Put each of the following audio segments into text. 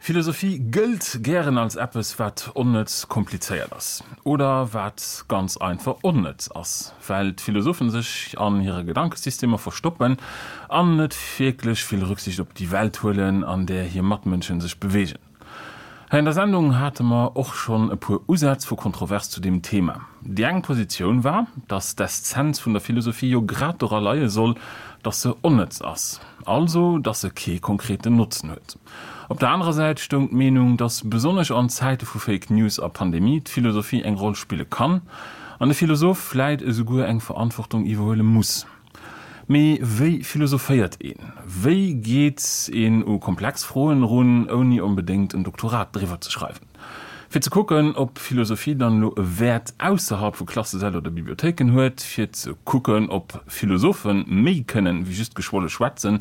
Philosophie gëllt gären als eppes, wat onnëtz komplizéiert ass. Oder wat ganz einfach onnëtz ass, well d'Philosophen sech an hire Gedankesystemer verstoppen an net wierklech vill Rücksicht op déi Welt huelen, an där hir Matmënschen sech beweegen. Hei an der Sendung hate mer och schonn e puer Usätz vu Kontrovers zu deem Thema. Déi eng Positioun war, datt d'Eszenz vun der Philosophie jo grad dora leie soll, datt se onnëtz ass, also datt se kee konkreten Notzen huet. Op der anerer Säit stoung d'Meenung, datt besonnesch an Zäite vu Fake News a Pandemie d'Philosophie eng Roll spille kann an de Philosoph vläit esouguer eng Verantwortung iwwerhuele muss. Mee wéi philosophéiert een? Wéi geet een u komplex Froen erun, ouni onbedéngt en Doktorat driwwer ze schreiwen? Fir ze kucken, ob Philosophie dann elo e Wäert ausserhalb vu Klassesäll oder Bibliothéiken huet, fir ze kucken, ob Philosophe méi kënnen, wéi just geschwolle schwätzen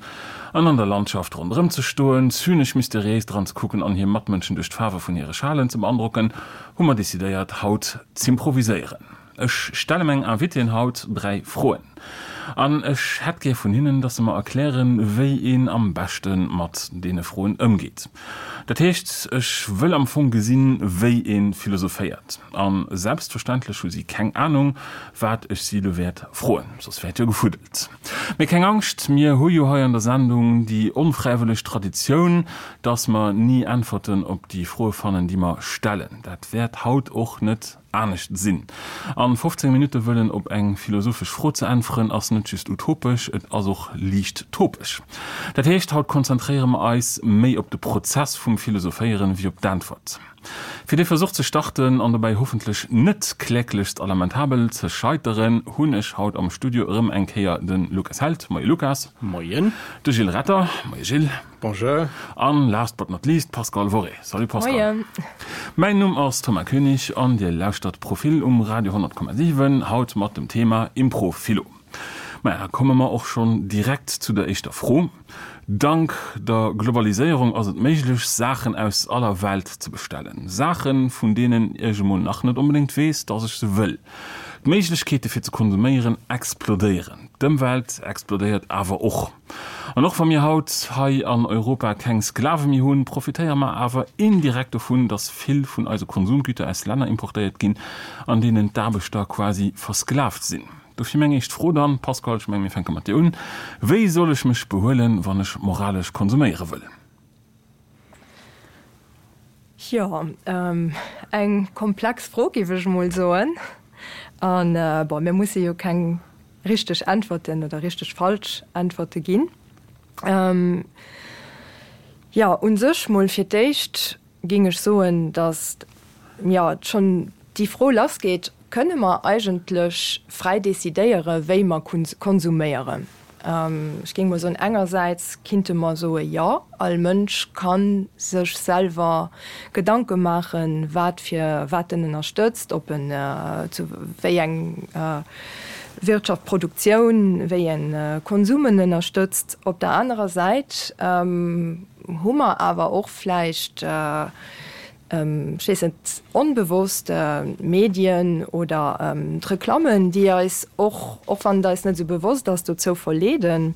an an der Landschaft ronderëm ze stoen, zynesch mysteriéis dran ze kucken an hir Matmënschen duerch d'Faarwe vun hire Schalen ze beandrocken, hu mer decidéiert, haut z'improviséieren. Ech stelle meng Invitéen haut 3 Froen an ech hätt gär vun hinnen, dass se mer erklären, wéi een am beschte mat deene Froen ëmgeet. Dat heescht, ech wëll am Fong gesinn, wéi ee philosophéiert. A selbstverständlech hu si keng Anung, wat ech si elo wäert froen, soss wär et jo gefuddelt. Mee keng Angscht, mir hu jo hei an der Sendung déi onfräiwëlleg Traditioun, dass mer ni Äntwerten op déi Froe fannen, déi mer stellen. Dat wäert haut och net anescht sinn. An 15 Minutte wëllen op eng philosophesch Fro ze äntweren, ass net just utopesch, et ass och liicht topesch. Dat heescht, haut konzentréiere mer eis méi op de Prozess vum Philosophéieren wéi op d'Äntwert. Fir dee Versuch ze starten an dobäi hoffentlech net kläglechst a lamentabel ze scheiteren, hunn ech haut am Studio erëm eng Kéier de Lukas Held, Moie Lukas. Moien. De Gilles Retter, Moie Gilles. Bonjour. An last but not least Pascale Worré. Salut Pascale. Moien. Mäin Numm ass Thomas Koenig an dir lauschtert Profil um Radio 100,7, haut mat dem Thema Impro-Philo. Maja, da komme mer och schonn direkt zu der éischter Fro. Dank der Globaliséierung ass et méiglech, Saachen aus aller Welt ze bestellen. Saachen, vun deenen ech emol nach net onbedéngt weess, dass ech se wëll. D'Méiglechkeete fir ze konsuméieren explodéieren. D'Ëmwelt explodéiert awer och. An och wa mir haut hei an Europa keng Sklave méi hunn, profitéiere mer awer indirekt dovun, dass vill vun eise Konsumgüter aus Länner importéiert ginn, an deenen d'Aarbechter quasi versklavt sinn. Dofir meng éischt Fro dann, Pascal, ech mengen, mir fänke mat dir un, Wéi soll ech mech behuelen, wann ech moralesch konsuméiere wëll? Jo, eng komplex Fro, géif ech emol soen. An, bon, mir musse jo keng richteg Äntwerten oder richteg falsch Äntwerte ginn. Jo, u sech mol fir d'éischt géing ech soen, datt, jo, schonn déi Fro lassgeet, Kënne mer eigentlech fräi decidéiere wéi mer konsuméieren? Ech géing mol soen, engersäits kinnte mer soe jo, all Mënsch ka sech selwer Gedanke maachen, wat fir wat en ënnerstëtzt, ob en zu wéi eng Wirtschaft, Produktioun, wéi en Konsum en ënnerstëtzt. Op der anerer Säit hu mer awer och vläicht, ech weess net, onbewosst d'Medien oder d'Reklammen, déi eis och, och wann et eis net esou bewosst ass, dozou verleeden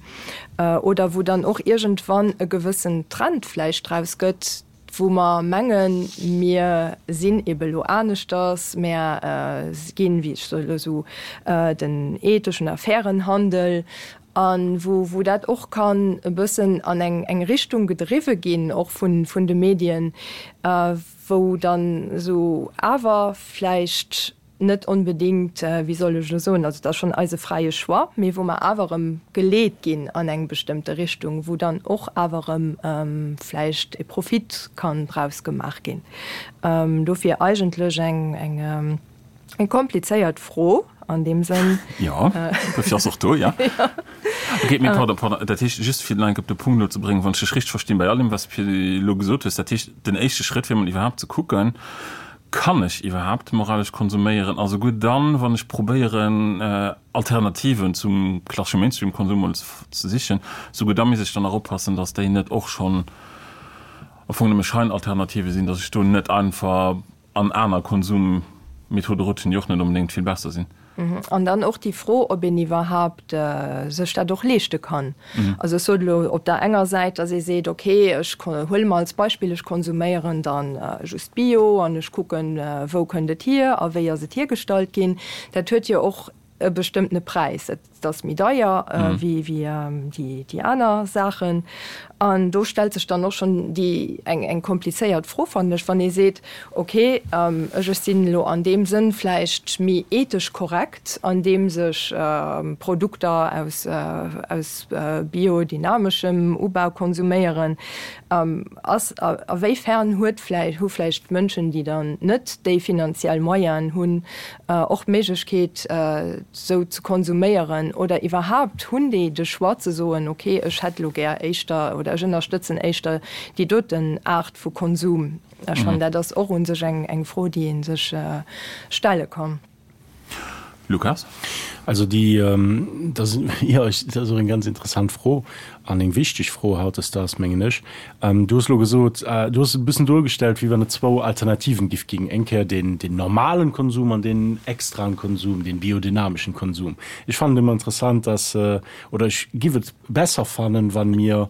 oder wou dann och iergendwann e gewëssen Trend vläicht draus gëtt, wou mer mengen, mir sinn ebe lo aneschters, mär ginn, wéi ech soe lo esou, den etheschen a fairen Handel A wou, wou dat och kann e bëssen an eng, eng Richtung gedriwwe ginn, och vun, vun de Medien, wou dann esou awer vläicht net onbedéngt, wéi soll ech elo soen, also et ass schonn eise fräie Choix, mee wou mer awer erëm geleet ginn an eng bestëmmte Richtung, wou dann och awer erëm vläicht e Profit kann draus gemaach ginn. Dofir eigentlech eng, eng. Eng komplizéiert Fro an deem Sënn. Jo, dofir ass och do, ja. Ok, mee pardon, pardon, dat heescht, just fir nach eng Kéier op de Punkt elo ze bréngen, wann ech dech richteg verstinn, bei all deem, wat s de elo gesot hues, dat heescht, den éischte Schrëtt wier mol iwwerhaapt ze kucken, Kann ech iwwerhaapt moralesch konsuméieren? A souguer dann, wann ech probéieren, Alternativen zum klassesche Mainstream-Konsum mol ze sichen, souguer da misst ech dann nach oppassen, datt déi net och schonn am Fong nëmme Scheinalternative sinn, datt ech do net einfach an aner Konsummethode rutschen, déi och net onbedéngt vill besser sinn. An dann och déi Fro, ob een iwwerhaapt sech dat och leeschte kann. Also ech sot elo op der enger Säit, datt ee seet, okay, ech huele mer als Beispill, ech konsuméieren dann just Bio an ech kucken, wou kënnt et hier a wéi ass et hiergestallt ginn. Dat huet jo och e bestëmmtene Präis. Et ass méi deier wéi déi aner Saachen. An do stellt sech dann och schonn déi eng eng komplizéiert Fro, fannen ech, wann ee seet, okay, ech ech sinn elo an deem Sënn vläicht méi ethesch korrekt, andeems ech Produkter aus aus biodynamischem Ubau konsuméieren, ass a wéifern huet vläicht hu vläicht Mënschen, déi dann net déi finanziell Moyenen hunn, och d'Méiglechkeet sou ze konsuméieren oder iwwerhaapt hunn déi de Choix ze soen, ok ech hätt elo gär éischter oder ech ënnerstëtzen éischter déi doten Aart vu Konsum. Ech fannen dat ass och u sech eng Fro déi ee sech stelle kann. Lukas? Also déi, dat ass, jo, dat ass och eng ganz interessant Fro an eng wichteg Fro hautdesdaags, mengen ech. Du hues elo gesot, du hues et e bëssen duergestellt, wéi wann et zwou Alternativen giff ginn, eng Kéier deen, deen normalen Konsum an deen extraen Konsum, deen biodynameschen Konsum. Ech fannen et ëmmer interessant, dass, oder ech giff et besser fannen, wann mir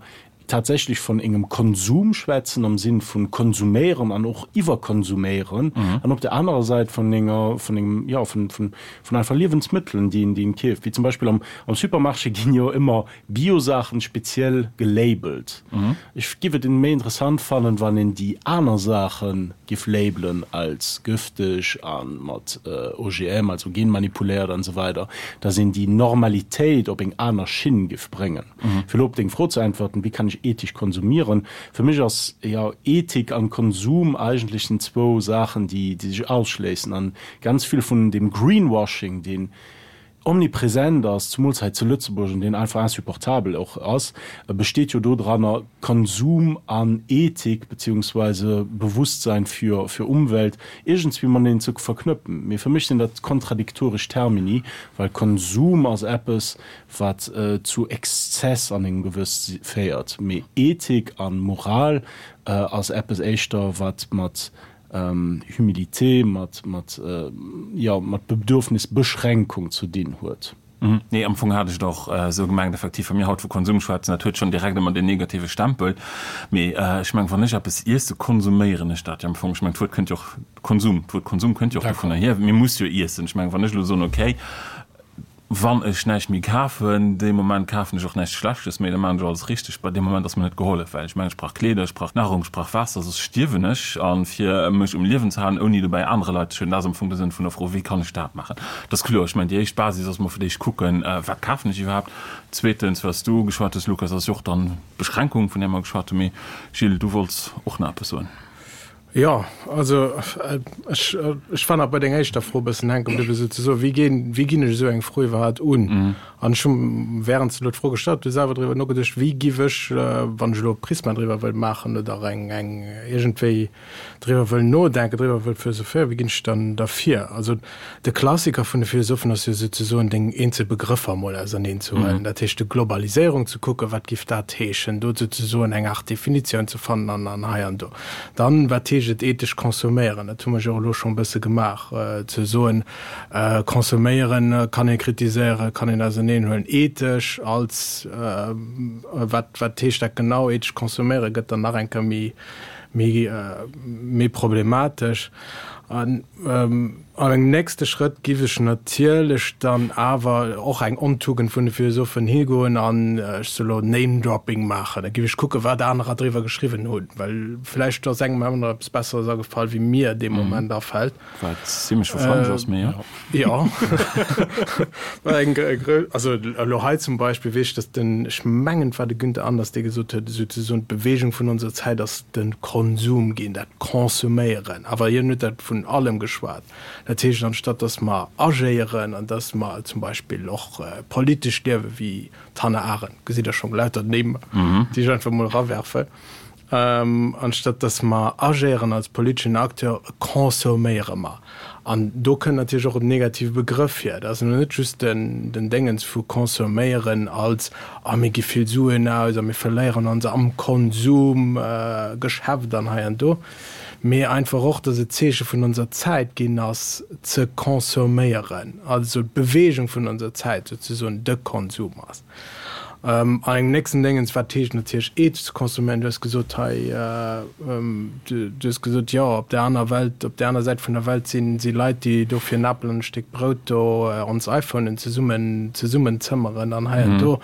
tatsächlech von engem Konsum schwätzen am Sinn vun konsuméieren an och iwwerkonsuméieren an op der anerer Säit vun enger, vun engem, jo, vun, vun, vun einfach Liewensmëttelen, déi een, déi een keeft. Wéi zum Beispill am, am Supermarché ginn jo ëmmer Bio-Saachen speziell gelabelt. Ech giff et méi interessant fannen, wann een déi aner Saachen giff labelen als gëfteg an mat OGM, also genmanipuléiert an esou weider, dass een déi Normalitéit op eng aner Schinn giff bréngen. Fir elo op deng Fro ze äntwerten, wéi kann ech ethesch konsumieren? Fir mech ass jo Ethik an Konsum eigentlech sinn zwou Saachen, déi sech ausschléissen an ganz vill vun deem Greenwashing, deen omnipresent ass, zumools hei zu Lëtzebuerg, an deen einfach insupportabel och ass, besteet jo dodranner, Konsum an Ethik beziehungsweise Bewusstsein für, für Umwelt iergendswéi mateneen ze verknëppen. Mee fir mech sinn dat kontradiktoresch Termini, well Konsum ass eppes, wat zu Exzess an engem gewëss féiert, mee Ethik a Moral ass eppes éischter, wat mat Humilité, mat, mat, jo, mat Bedürfnisbeschränkung ze dinn huet. Nee, am Fong hat ech et och esou gemengt, effektiv, wa mir haut vu Konsum schwätzen, dat huet schonn direkt ëmmer deen negative Stempel. Mee ech mengen, wann ech eppes iesse, konsuméieren ech dat jo am Fong. Ech mengen, d'Wuert kënnt jo och, Konsum, d'Wuert Konsum kënnt jo och dovunner hier. Mir muss jo iessen. Ech mengen, wann ech elo soen, okay, Wann ech näischt méi kafen, dee Moment kafen ech och näischt Schlechtes méi, da maachen ech alles richteg. Bei deem Moment ass mir net gehollef, well ech mengen, ech brauch Kleeder, ech brauch Nahrung, ech brauch Waasser, soss stierwen ech. A fir mech um Liewen ze halen, ouni dobäi anere Leit ze schueden, dat ass am Fong de Sënn vun der Fro, Wéi kann ech dat maachen? Dat ass kloer. Ech mengen, déi éischt Basis ass mol fir d'éischt kucken, Wat kafen ech iwwerhaapt? Zweetens, wat s du geschwat hues, Lukas, ass jo och dann d'Beschränkung, vun där mer geschwat hunn. Mee Gilles, du wollts och nach eppes soen. Jo, also ech, ech war nach bei denger éischter Fro e bëssen hänke bliwwen, souzesoen, wéi ginn, wéi ginn ech esou eng Fro iwwerhaapt un? An ech hu während s de elo d'Fro gestallt hues, selwer driwwer nogeduecht, wéi giff ech, wann ech elo e Prisma driwwer wëll maachen oder eng, eng iergendwéi driwwer wëll nodenken, driwwer wëll philosophéieren, wéi ginn ech dann da vir? Also De Klassiker vun de Philosophen ass jo souzesoen, deng eenzel Begrëffer emol auserneen ze huelen, dat heescht de Globaliséierung ze kucken, wat giff dat heeschen, do souzesoen eng Aart Definitioun ze fannen an an hei an do. Dann, wat heescht et ethesch consomméieren, dat hu mer jo och elo scho e bësse gemaach, ze soen, consomméieren kann ee kritiséieren, kann een auserneen huelen, ethesch als wat, wat heescht dat genau, ethesch consomméieren gëtt dann nach eng Kéier méi, méi, méi problematesch. An an engem nächste Schrëtt giff ech natierlech dann awer, och eng Ontugend vun de Philosophen, higoen an, ech soe lo, Name-Dropping maachen. Da giff ech kucken, wat anerer driwwer geschriwwen hunn, well vläicht ass engem aner eppes Besseres agefall, wéi mir dee Moment afält. Wat zimlech wahrscheinlech ass, mee jo. Jo. Eng grou, also elo hei zum Beispill weess ech, datt den, ech mengen et war de Günther Anders, dee gesot huet, souzesoen d'Bewegung vun onser Zäit ass de Konsum ginn, dat Consomméieren. Awer hien huet dat vun allem geschwat. Dat heescht, anstatt datt mer agéieren an datt mer zum Beispill och politesch liewen, wéi d'Hannah Arendt, gesitt Der schonn, lauter Nimm, déi ech einfach emol erawerfen, Anstatt dass mer agéieren als politeschen Acteur, consomméiere mer. An do kënnt natierlech och en negative Begrëff hier. Dat ass elo net just den Déngens vu consomméieren als, ah mir gi vill Suen aus a mir verléieren ons am Konsumgeschäft an hei an do. Mee einfach och, dass et d'Zeeche vun onser Zäit ginn ass, ze consomméieren, also d'Beweegung vun onser Zäit souzesoen de Konsum ass. An engem nächsten Déngens, wat heescht natierlech ethesch ze consomméieren? Du hues gesot hei, du hues gesot, jo, op där aner Welt, op där aner Säit vun der Welt sinn, si Leit, déi do fir en Apel an e Stéck Brout do ons iPhonen zesummen, zesummenzëmmeren an hei an do.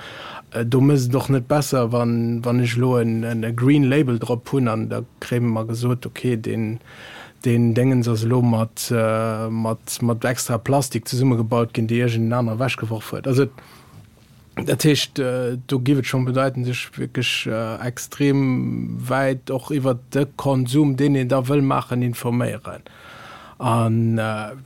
Do mécht et och net besser, wann, wann ech elo en, e Green Label drop hunn an da kréie mer gesot, okay, deen, deen Déngens ass elo mat, mat, mat extra Plastik zesummegebaut ginn, déi iergend en aner ewechgeworf huet. Also dat heescht, do géif et schonn bedeiten, sech wierklech extrem wäit och iwwert de Konsum, deen een da wëll maachen, informéieren. An,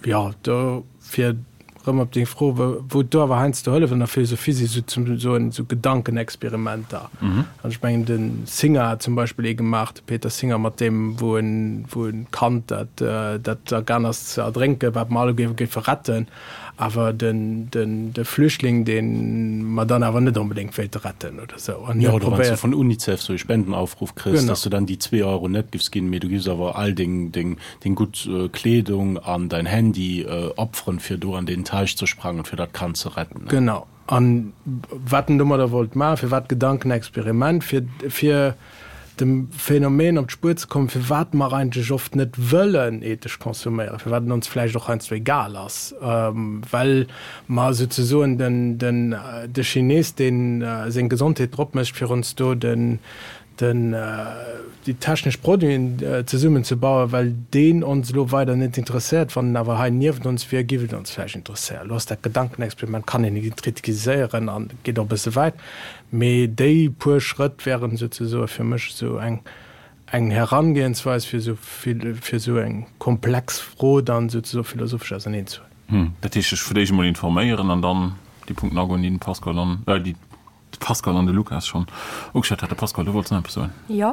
jo, do fir Rëm op deng Fro, wou et do awer heiansdo hëlleft an der Philosophie, si sou ze soen esou Gedankenexperimenter. An ech mengen de Singer hat zum Beispill ee gemaach, de Peter Singer, mat deem wou en wou en Kand dat dat agaang ass ze erdrénken, wat mer alleguer géife retten, awer den den de Flüchtling, dee mer dann awer net onbedéngt wéilte retten oder sou. An hie huet probéiert. Jo, oder wann s du vun Unicef sou e Spendenaufruf kriss, dass du dann déi zwee Euro net giffs ginn, mee du giffs awer all deng deng deng gutt Kleedung an dein Handy opferen, fir do an deen Teich ze sprangen, fir dat Kand ze retten. Genau. An wat en domadder wollt maachen, firwat Gedankenexperiment, fir, fir dem Phänomen op d'Spuer ze kommen, firwat mer eigentlech oft net wëllen ethesch consomméieren, firwat et ons vläicht och heiansdo egal ass, well mer souzesoen den, den, de Chines, deen seng Gesondheet drop mécht, fir ons do den, den, déi technesch Produiten zesummen ze bauen, well deen ons elo weider net interesséiert. Wann en awer hei niewent ons wier, giff et ons vläicht interesséieren. Elo ass dat Gedankenexperiment, kann een kritiséieren an geet och e bësse wäit, mee déi puer Schrëtt wären souzesoe fir mech esou eng, eng Herangehensweis, fir esou vill, fir esou eng komplex Fro dann souzesoe philosophesch auserneen ze huelen. Dat heescht, sech fir d'éischt emol informéieren an dann déi Punkten agoen, déi den Pascal an, déi De Pascal an de Lukas schonn ugeschwat hat. De Pascal, du wollts nach eppes soen? Jo,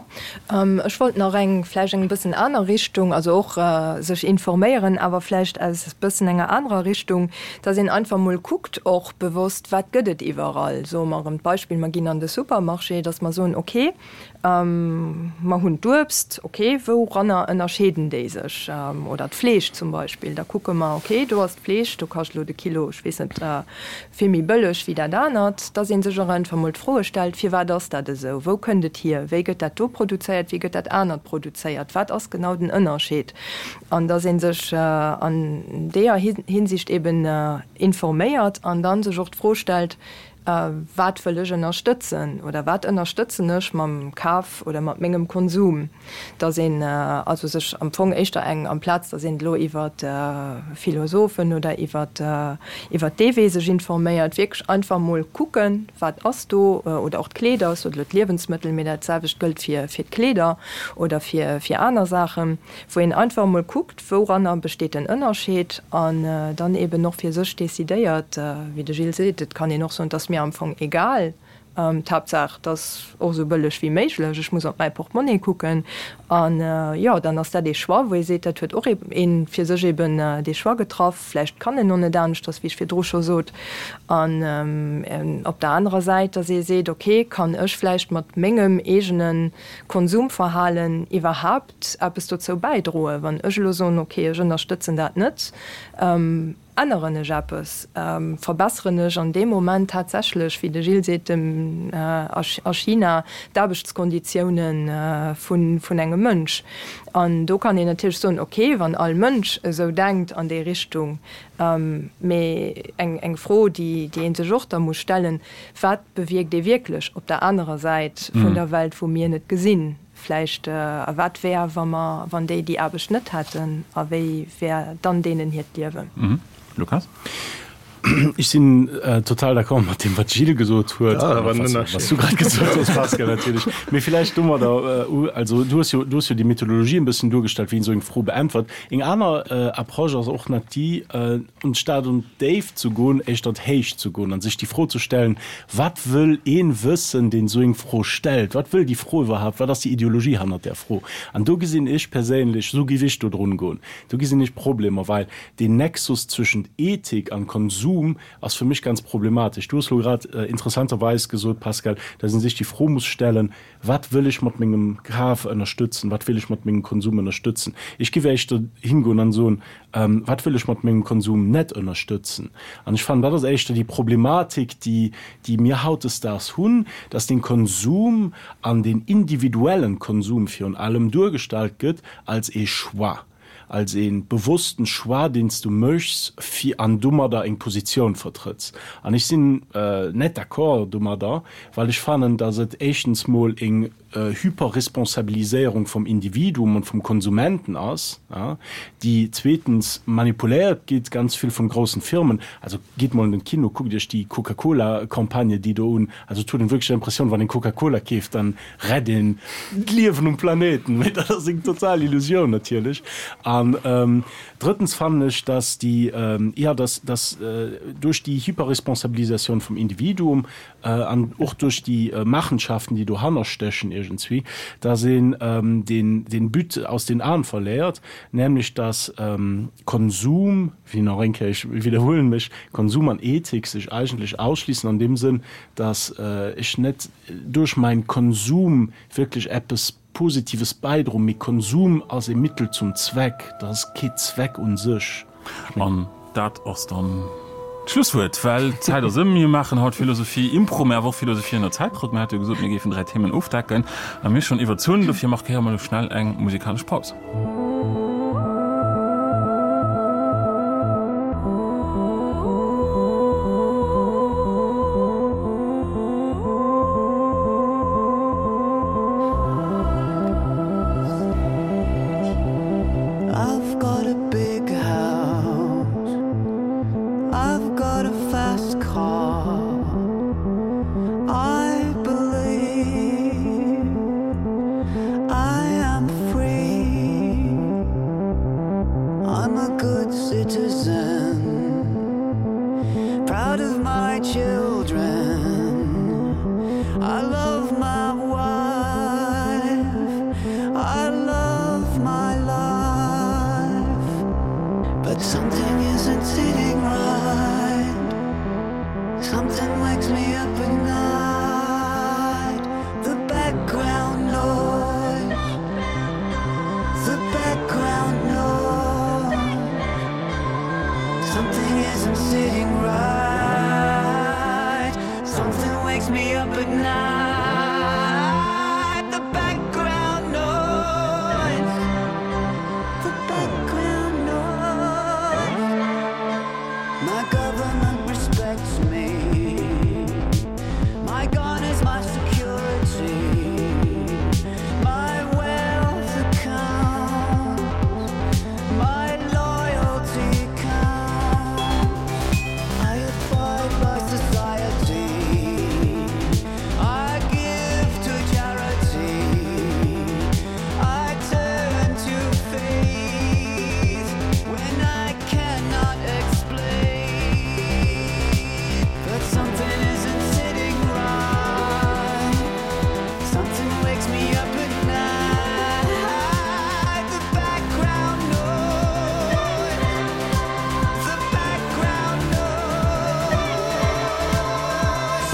ech wollt nach eng, vläicht eng bëssen aner Richtung, also och sech informéieren, awer vläicht aus bëssen enger anerer Richtung, dass een einfach mol kuckt och bewosst, wat gëtt et iwwerall. Soe mer erëm d'Beispill, mer ginn an de Supermarché, dass mer soen, okay, Mer hunn d'Uebst, ok, wouranner ënnerscheeden déi sech? Oder d'Fleesch zum Beispill, da kucke mer, ok, do ass d'Fleesch, do kascht elo de Kilo, ech weess net, vill méi bëlleg wéi dat anert. Dass ee sech och einfach mol d'Froe stellt, Firwat ass dat esou? Wou kënnt et hier? Wéi gëtt dat do produzéiert? Wéi gëtt dat anert produzéiert? Wat ass genau den Ënnerscheed? An dass ee sech an deeër Hinsicht eben informéiert an da sech och d'Fro stellt, Wat wëll ech ënnerstëtzen oder wat ënnerstëtzen ech mam Kaf oder mat mengem Konsum? Dass een also sech am Fong éischter eng, amplaz dass een elo iwwer Philosophen oder iwwer iwwer dee Wee sech informéiert, wierklech einfach mol kucken, wat ass do, oder och d'Kleeder, ech sot elo d'Liewensmëttel, mee dat selwecht gëllt fir fir d'Kleeder oder fir fir aner Saachen, wou een einfach emol kuckt, Wouranner besteet den Ënnerscheed? An dann eben och fir sech decidéiert, wéi de Gilles seet, et kann een och soen, et ass mir am Fong egal, d'Haaptsaach, et ass och esou bëlleg wéi méiglech, ech muss op mäi Portemonnaie kucken. An jo, dann ass dat ee Choix, wou ee seet, dat huet och ee fir sech eben dee Choix getraff. Vläicht kann en och net aneschters, wéi ech virdru scho sot. An op der anerer Säit, datt ee seet, okay, kann ech vläicht mat mengem eegene Konsumverhalen iwwerhaapt eppes dozou bäidroen. Wann ech elo soen, ok, ech ënnerstëtzen dat net, änneren ech eppes, verbesseren ech an deem Moment tatsächlech, wéi de Gilles seet, dem a China d'Aarbechtskonditiounen vun engem Mënsch. An do kann een natierlech soen, ok, wann all Mënsch esou denkt an déi Richtung, mee eng Fro, déi ee sech och da muss stellen, Wat bewierkt ee wierklech op der anerer Säit vun der Welt, wou mir net gesinn? Vläicht, a wat wär, wa mer, wann déi déi Aarbecht net hätten, a wéi wär dann deenen hiert Liewen? Lukas? Ech sinn total d'accord mat deem, wat d'Jill gesot huet, a wat s du grad gesot hues, Pascal, natierlech. Mee villäicht domadder, also du hues jo, du hues jo déi Methodologie e bëssen duergestallt, wéi een esou eng Fro beäntwert. Eng aner Approche ass och nach déi, Anstatt un d'Déift ze goen, éischter an d'Héicht ze goen an sech déi Fro ze stellen, Wat wëll een wëssen, deen esou eng Fro stellt? Wat wëll déi Fro iwwerhaapt? Wat ass déi Ideologie hannert där Fro? An do gesinn ech perséinlech, esou géif ech do drun goen, do gesinn ech Problemer, well deen Nexus zwëschent Ethik an Konsum. Konsum ass fir mech ganz problematesch. Du hues elo grad interessanterweis gesot, Pascal, dass ee sech déi Fro muss stellen, Wat wëll ech mat mengem Kaf ënnerstëtzen? Wat wéll ech mat mengem Konsum ënnerstëtzen? Ech géif éischter hingoen an soen, Wat wëll ech mat mengem Konsum net ënnerstëtzen? An ech fannen, dat ass éischter déi Problematik, déi, déi mir hautdesdaags hunn, dass den Konsum an den individuellen Konsum virun allem duergestallt gëtt als ee Choix, als ee bewossten Choix, deen s du méchs, fir an domadder eng Positioun vertrëtts. An ech sinn net d'accord domadder, well ech fannen, dass et éischtens mol eng Hyperresponsabiliséierung vum Individuum und vum Konsumenten ass, déi zweetens manipuléiert gitt ganz vill vun groussen Firmen. Also gitt mol an den Kino, kuckt iech déi Coca-Cola-Campagne déi do un. Also et huet een wierklech d'Impressioun, wann een Coca-Cola keeft, dann rett een d'Liewen um Planeten. Mee dat ass eng total Illusioun natierlech. An drëttens fannen ech, dass déi, jo, dass, dass duerch déi Hyperresponsabilisatioun vum Individuum an och duerch déi Machenschaften, déi dohanner stéchen iergendswéi, dass een den, den But aus den Aen verléiert, nämlech dass Konsum, wéi nach eng Kéier, ech widderhuelen mech, Konsum an Ethik sech eigentlech ausschliessen an deem Sënn, dass ech net duerch mäin Konsum wierklech eppes Positives bäidroen, mee Konsum ass e Mittel zum Zweck, dat ass kee Zweck un sech. An dat ass dann d'Schlusswuert, well d'Zäit ass ëm. Mir maachen haut Philosophie Impro, mä awer och Philosophie ënner Zäitdrock. Mir hate jo gesot, mir géifen 3 Themen ofdecken a mir hu schonn iwwerzunn. Dofir markéiere mer elo schnell eng musikalesch Paus. I've got a big house I've got a fast car I believe I am free I'm a good citizen Proud of my children I love my wife I love my life But something isn't sitting right Something wakes me up at night The background noise The background noise Something isn't sitting right Something wakes me up at night The background noise The background noise My government respects me My gun is my security My wealth accounts My loyalty counts I abide by society I give to charity I turn to faith when I cannot explain But something isn't sitting right Something wakes me up at night The background noise The background noise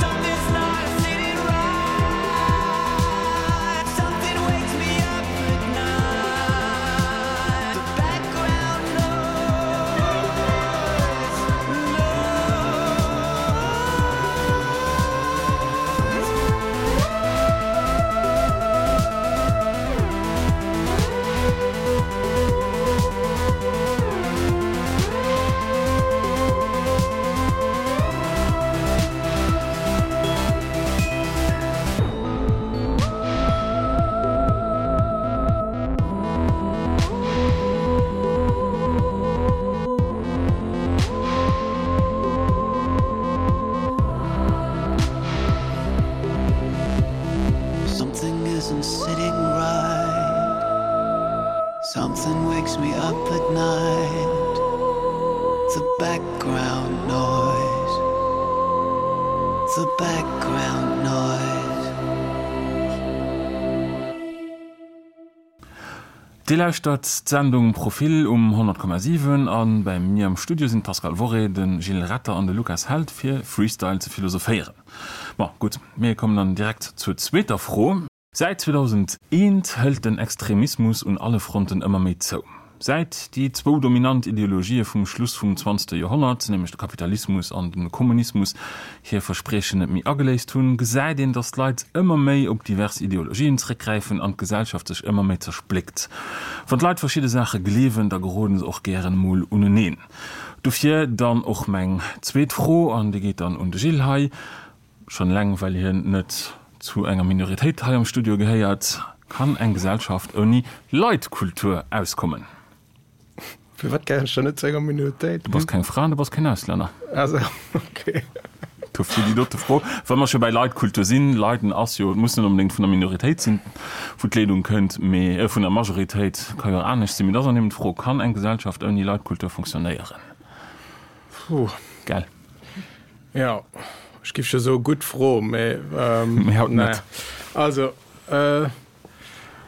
Something's not sitting right Something wakes me up at night The background noise Something isn't sitting right Something wakes me up at night The background noise The background noise. Dir lauschtert d'Sendung Profil um 100,7 a bei mir am Studio sinn d'Pascale Worré, de Gilles Retter an de Lukas Held fir Freestyle ze philosophéieren. Bon, gutt, mir kommen dann direkt zur zweeter Fro. Säit 2001 hëlt den Extremismus un alle Fronten ëmmer méi zou. Säit déi zwou dominant Ideologië vum Schluss vum zwanzegste Joerhonnert, nämlech de Kapitalismus an de Kommunismus, hir Verspriechen net méi ageléist hunn, gesäit een, datt d'Leit ëmmer méi op divers Ideologien zréckgräifen an d'Gesellschaft sech ëmmer méi zerspléckt. Wann d'Leit verschidde Saache gleewen, da geroden se och gären emol uneneen. Dofir dann och meng zweet Fro, an déi geet dann un de Gilles hei, Schonn eleng well hien net zu enger Minoritéit hei am Studio gehéiert. Kann eng Gesellschaft ouni Leitkultur auskommen? Firwat gehéieren ech dann net zu enger Minoritéit? Du bass keng Fra an du bass keen Auslänner. Ah sou, ok. Dofir déi dote Fro. Wa mer scho bäi Leitkultur sinn, Leiden ass jo, et muss net onbedéngt vun der Minoritéit sinn, wou d'Leedung kënnt, mee vun der Majoritéit, ka jo och anescht sinn. Mee et ass an eben d'Fro, Kann eng Gesellschaft ouni Leitkultur funktionéieren? Puh. Gell? Jo, ech giff jo soe gutt Fro, mee Mee haut net. Also,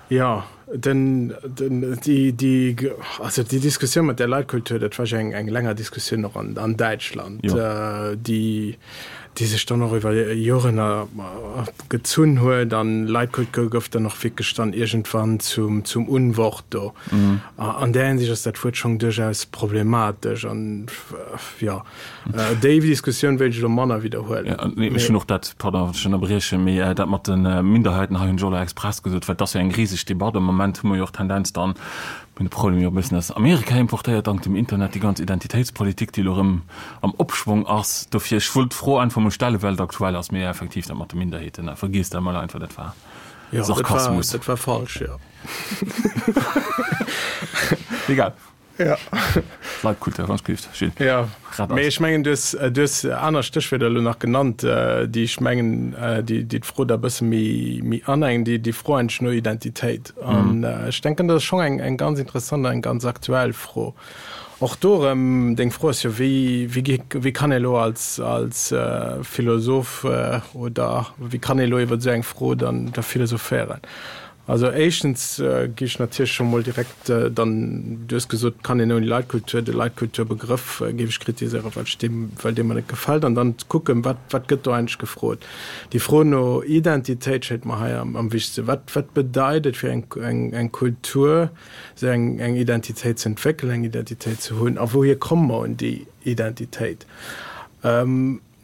jo, den, den, déi, déi, also déi Diskussioun mat där Leitkultur, dat war jo eng, eng länger Diskussioun och an, an Däitschland, déi, déi sech dann och iwwer Joren gezunn huet. An Leitkultur gouf dann och wierklech dann iergendwann zum, zum Unwort do. An där Hinsicht ass dat Wuert schonn duerchaus problematesch an, jo. Déi Diskussioun wéilt ech elo manner widderhuelen. Ja, nee, ech hunn och dat, pardon, wann ech ënnerbriechen, mee dat mat de Minderheiten hei hunn ech och elo express gesot, well et ass jo eng riseg Debatt. Am Moment hu mer jo och d'Tendenz dann, mir hunn de Problem jo e bëssen aus Amerika importéiert, dank dem Internet, déi ganz Identitéitspolitik, déi elo erëm am Opschwong ass. Dofir, ech wollt d'Fro einfach mol stellen, well et aktuell ass, mee effektiv, dat mat de Minderheeten, vergiesst dat mol einfach, dat war Sarkasmus. Jo, dat war falsch, jo. Egal. Ja. Leitkultur, wann ech Gilles. Ja. Mee ech mengen, du hues, du hues aner Stéchwierder elo nach genannt, déi ech mengen, déi, déi d'Fro da e bësse méi, méi anengen, déi, déi Fro eigentlech no Identitéit. An ech denken, dat ass schonn eng, eng ganz interessant an eng ganz aktuell Fro. Och do erëm, deng Fro ass jo, wéi, wéi gi, wéi kann ee elo als, als Philosoph oder wéi kann ee elo iwwer esou eng Fro dann da philosophéieren? Also éischtens gi ech natierlech scho mol direkt dann, du hues gesot, et kann een ouni Leitkultur, de Leitkulturbegrëff géif ech kritiséieren, well ech deem, well dee mer net gefält. An dann ze kucken, wat, wat gëtt do eigentlech gefrot? Déi Fro no Identitéit schéngt mer hei am, am wichtegsten. Wat, wat bedeit et fir eng, eng, eng Kultur, esou eng, eng Identitéit ze entwéckelen, eng Identitéit ze hunn? A wouhier komme mer un déi Identitéit?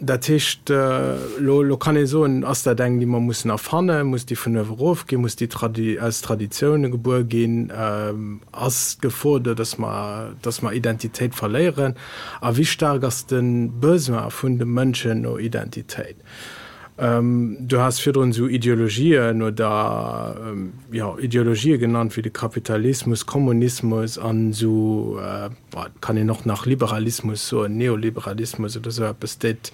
Dat heescht, elo, elo kann ee soen, ass dat eng, déi mer mussen erfannen, muss déi vun uewe erof ginn, muss déi Tradi aus Traditioune gebuer ginn, ass d'Gefor do, dass mer, dass mer Identitéit verléieren a wéi staark ass de Besoin vun de Mënschen no Identitéit? Du has virdrun esou Ideologien oder, jo, Ideologië genannt wéi de Kapitalismus, Kommunismus an esou, Bon, et kann een och nach Liberalismus soen, Neoliberalismus oder esou eppes, dat,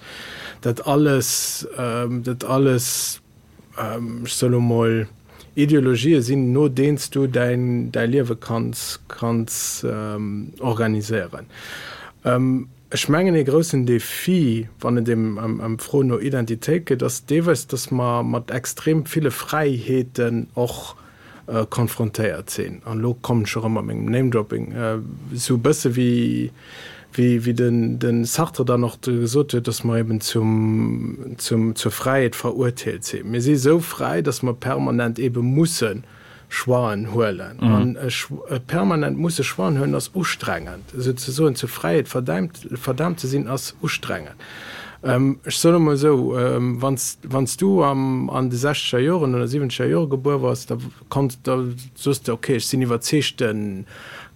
dat alles, dat alles, ech soe lo mol, Ideologië sinn, no deenen s du däin, däi Liewe kanns, kanns organiséieren. Ech mengen, ee groussen Defi, wann et ëm, ëm, ëm d'Fro no Identitéit geet, ass deelweis, dass mer mat extrem ville Fräiheeten och konfrontéiert sinn, an elo kommen ech erëm mat mengem Name-Dropping, esou e bësse wéi, wéi, wéi den, de Sartre dann och gesot huet, dass mer eben zum, zum, zur Fräiheet verurteelt sinn. Mir si esou fräi, dass mer permanent ebe musse Choixen huelen. An e permanent musse Choixen huelen ass ustrengend. Souzesoen zur Fräiheet verdäimt, verdaamt ze sinn, ass ustrengend. Ech soen emol esou, wann s du an de sechzeger Joren oder siwwenzeger Jore gebuer waars, da konns, da soos de, okay, ech sinn iwwerzeegte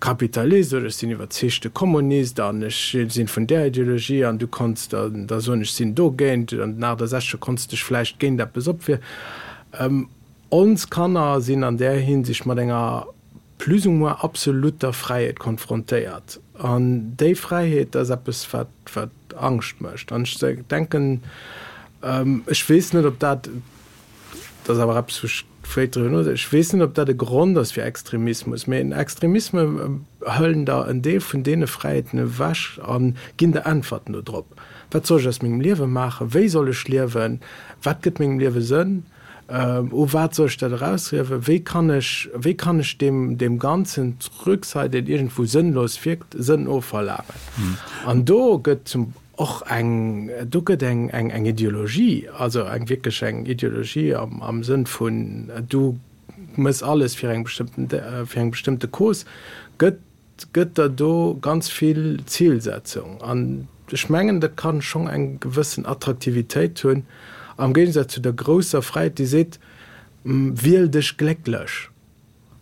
Kapitalist oder ech sinn iwwerzeegte Kommunist an ech sinn vun där Ideologie an du konns da da soen, ech sinn dogéint. An den 68er konns de dech vläicht géint eppes opwieren. Ons Kanner sinn an där Hinsicht mat enger plus ou moins absolutter Fräiheet konfrontéiert. An déi Fräiheet ass eppes, wat, wat Angscht mécht. An ech denken, ech weess net, ob dat, dat ass awer eppes, wou ech vläicht driwwer nodenken, ech weess net, ob dat e Grond ass fir Extremismus, mä en Extremisme hëllen der en Deel vun deene Fräiheeten ewech a ginn der Äntwerten dodrop. Wat soll ech aus mengem Liewe maachen? Wéi soll ech liewen? Wat gëtt mengem Liewe Sënn? U wat soll ech dat erausriewen? Wéi kann ech, wéi kann ech deem, deem Ganzen d'Rücksait, deen iergendwou sënnlos wierkt, Sënn ofverlaangen? An do gëtt zum och eng, do gëtt eng, eng, eng Ideologie, also eng wierklech eng Ideologie am, am Sënn vun du mëss alles fir eng bestëmmten, fir eng bestëmmte Cause, gëtt, gëtt der do ganz vill Zilsetzung. An ech mengen, dat kann schonn eng gewëssen Attraktivitéit hunn, am Géigesaz zu der grousser Fräiheet, déi seet, Wiel dech glécklech.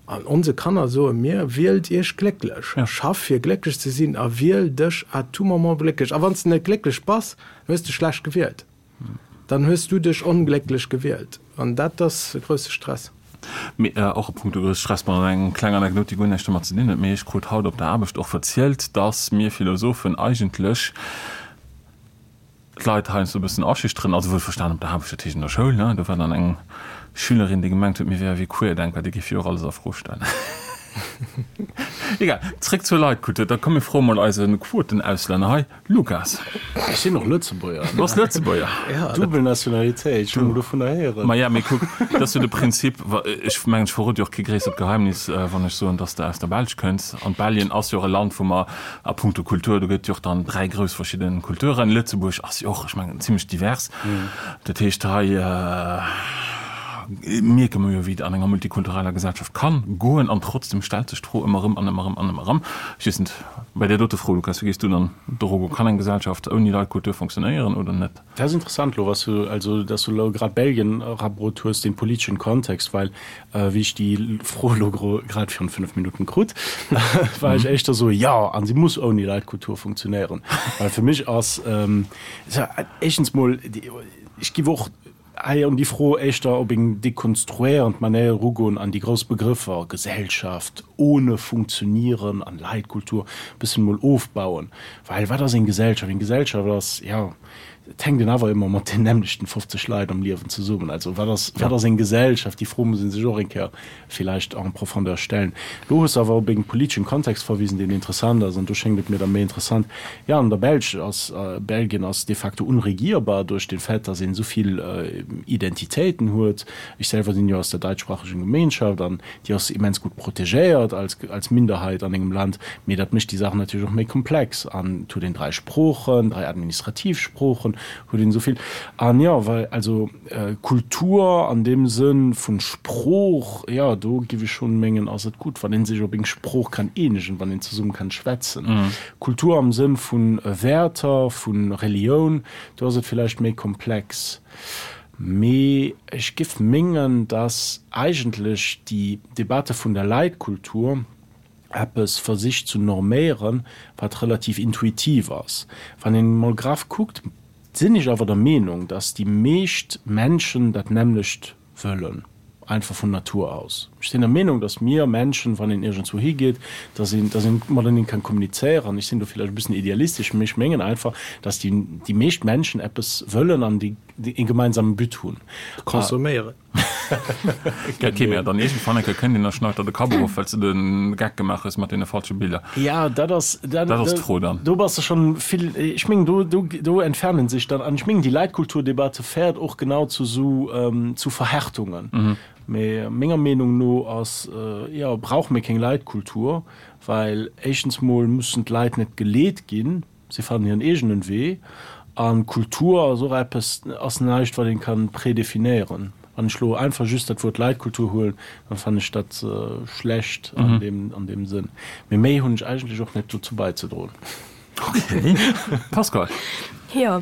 An onse Kanner soe mir, Wielt iech glécklech, schaff fir glécklech ze sinn a wiel dech à tout moment glécklech. A wann s de net glécklech bass, hues de schlecht gewielt. Dann hues du dech onglécklech gewielt. An dat ass e grousse Stress. Mee och a punkto grousse Stress, bon, eng kleng Anekdot, déi guer näischt domat ze dinn huet, mee ech krut haut op der Aarbecht och verzielt, dass mir Philosophen eigentlech d'Leit heiansdo e bëssen aschüchteren, also wuelverstan op der Aarbecht, dat heescht an der Schoul, ne, do war dann eng Schülerin, déi gemengt huet, mir wäre wéi Querdenker, déi géif jo och alles a Fro stellen. Egal, zréck zur Leitkultur, da komm mir froe mol eise Quotenauslänner hei. Lukas. Ech sinn och Lëtzebuerger. Du bass Lëtzebuerger. Duebel Nationalitéit, ech hunn emol dovunner héieren. Maja, mee kuck, dat ass jo de Prinzip. Ech mengen, ech verrode jo och kee gréissert Geheimnis, wann ech soen, dass de aus der Belsch kënns. An Belgien ass jo och e Land, wou mer a puncto Kultur, do gëtt jo och dann 3 grouss verschidde Kulturen. Lëtzebuerg ass jo och, ech mengen, zimlech divers. Dat heescht, hei mierke mer jo, wéi et an enger multikultureller Gesellschaft kann goen. An trotzdem stellt sech d'Fro ëmmer erëm an ëmmer erëm an ëmmer erëm. Ech weess net. Bei där dote Fro, Lukas, wéi gees du dann doru goen? Kann eng Gesellschaft ouni Leitkultur funktionéieren oder net? Dat ass interessant elo, was du, also dass du elo grad Belgien erabrot hues, dee politeschen Kontext, well wéi ech déi Fro elo grad virun 5 Minutten krut, war ech éischter esou, jo, an si muss ouni Leitkultur funktionéieren, well fir mech ass, éischtens mol, ech giff och Hei un déi Fro éischter op eng dekonstruéierend Manéier erugoen an déi grouss Begrëffer Gesellschaft, ohne Funktionieren an Leitkultur e bëssen emol ofbauen. Well wat ass eng Gesellschaft? Eng Gesellschaft ass, jo, et hänkt een awer ëmmer mat den nämmlechten 50 Leit am Liewen zesummen. Also wat ass, wat ass eng Gesellschaft? Déi Fro muss ee sech och eng Kéier villäicht en profondeur stellen. Lo hues de awer op en politeschen Kontext verwisen, deen interessant ass, an do schéngt et mir da méi interessant, jo, an der Belsch ass, Belgien ass de facto unregierbar duerch den Fait, dass een esou vill Identitéiten huet. Ech selwer sinn jo aus der daitschsprachigen Gemeinschaft, an déi ass immens gutt protegéiert als, als Minderheit an engem Land, mee dat mécht déi Saach natierlech och méi komplex, an et huet een 3 Sproochen, 3 administrativ Sproochen, huet een esou vill, an jo, well, also. Kultur an deem Sënn vun Sprooch, jo, do giff ech schonn mengen, ass et gutt, wann een sech op eng Sprooch kann eenegen, wann een zesumme kann schwätzen. Kultur am Sënn vun Wäerter, vun Relioun, do ass et villäicht méi komplex. Mee ech giff mengen, dass eigentlech déi Debatte vun der Leitkultur eppes versicht zu norméieren, wat relativ intuitiv ass. Wann een emol graff kuckt, sinn ech awer der Meenung, dass déi meescht Menschen dat nämmlecht wëllen, einfach vun Natur aus. Ech sinn der Meenung, dass mir Menschen, wann een iergendswou higeet, dass een, dass een mateneen kann kommunizéieren. Ech sinn do villäicht e bëssen idealistesch, mee ech mengen einfach, dass déi, déi meescht Menschen eppes wëllen an déi ee gemeinsamen But hunn. Consomméieren. Ok, mä dann iergendwann eng Kéier kënnt een a schneit der de Kapp erof, well s de de Geck gemaach hues mat deene falsche Biller. Ja, dat ass, dat ass d'Fro dann. Do bass de schonn vill, ech mengen, do, do, do entfernen sech dann, an ech mengen, déi Leitkulturdebatte féiert och genau zu esou, zu Verhärtungen. Mee menger Meenung no ass, jo, brauche mir keng Leitkultur, well éischtens mol mussen d'Leit net geleet ginn, Si fannen hiren eegenen Wee. An Kultur ass och eppes, ass näischt wat een kann prédéfinéieren. Wann ech lo einfach just dat Wuert Leitkultur huelen, dann fannen ech dat schlecht an deem, an deem Sënn. Mee méi hunn ech eigentlech och net dozou beizedroen. Okay. Pascale. Jo,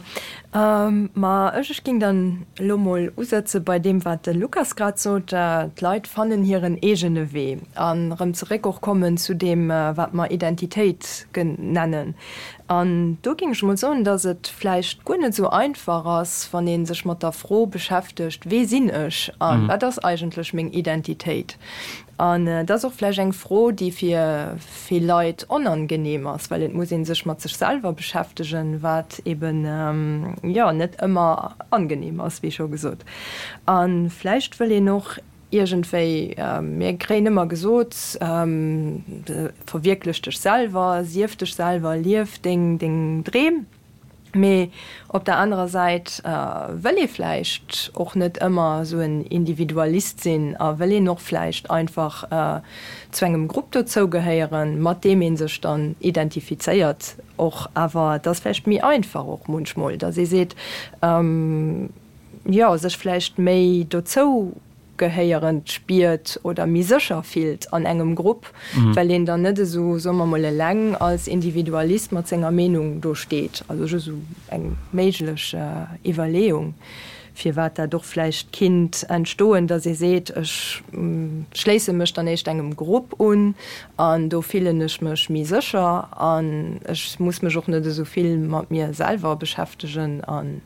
ma ech, ech ging dann elo mol usetze bei deem wat de Lukas grad sot, d'Leit fannen hiren eegene Wee. An erëm zeréck och kommen zu deem wat mer Identitéit nennen. An do géing ech emol soen, datt et vläicht guer net esou einfach ass, wann ee sech mat der Fro beschäftegt, Wee sinn ech a wat ass eigentlech meng Identitéit? An et ass och vläicht eng Fro, déi fir vill Leit onangenehm ass, well et muss ee sech mat sech selwer beschäftegen, wat eben, jo, net ëmmer angenehm ass, wéi scho gesot. A vläicht wëll een och Iergendwéi, mir kréien ëmmer gesot, verwierklech dech selwer, sief dech selwer, lief deng deng Dreem. Mee op der anerer Säit wëll ee vläicht och net ëmmer esou en Individualist sinn a wëll een och vläicht einfach zu engem Grupp dozou gehéieren, mat deem ee sech dann identifizéiert och. Awer et ass vläicht méi einfach och munchmol, datt ee seet, jo, sech vläicht méi dozou gehéierend spiert oder méi sécher fillt an engem Grupp, well een dann net esou, soe mer mol, eleng als Individualist mat senger Meenung do steet. Also just esou eng méiglech Iwwerleeung, firwat dat och vläicht kinnt entstoen, datt ee seet, ech schléisse mech dann éischt engem Grupp un an do fillen ech mech méi sécher an ech muss mech och net esou vill mat mir selwer beschäftegen an.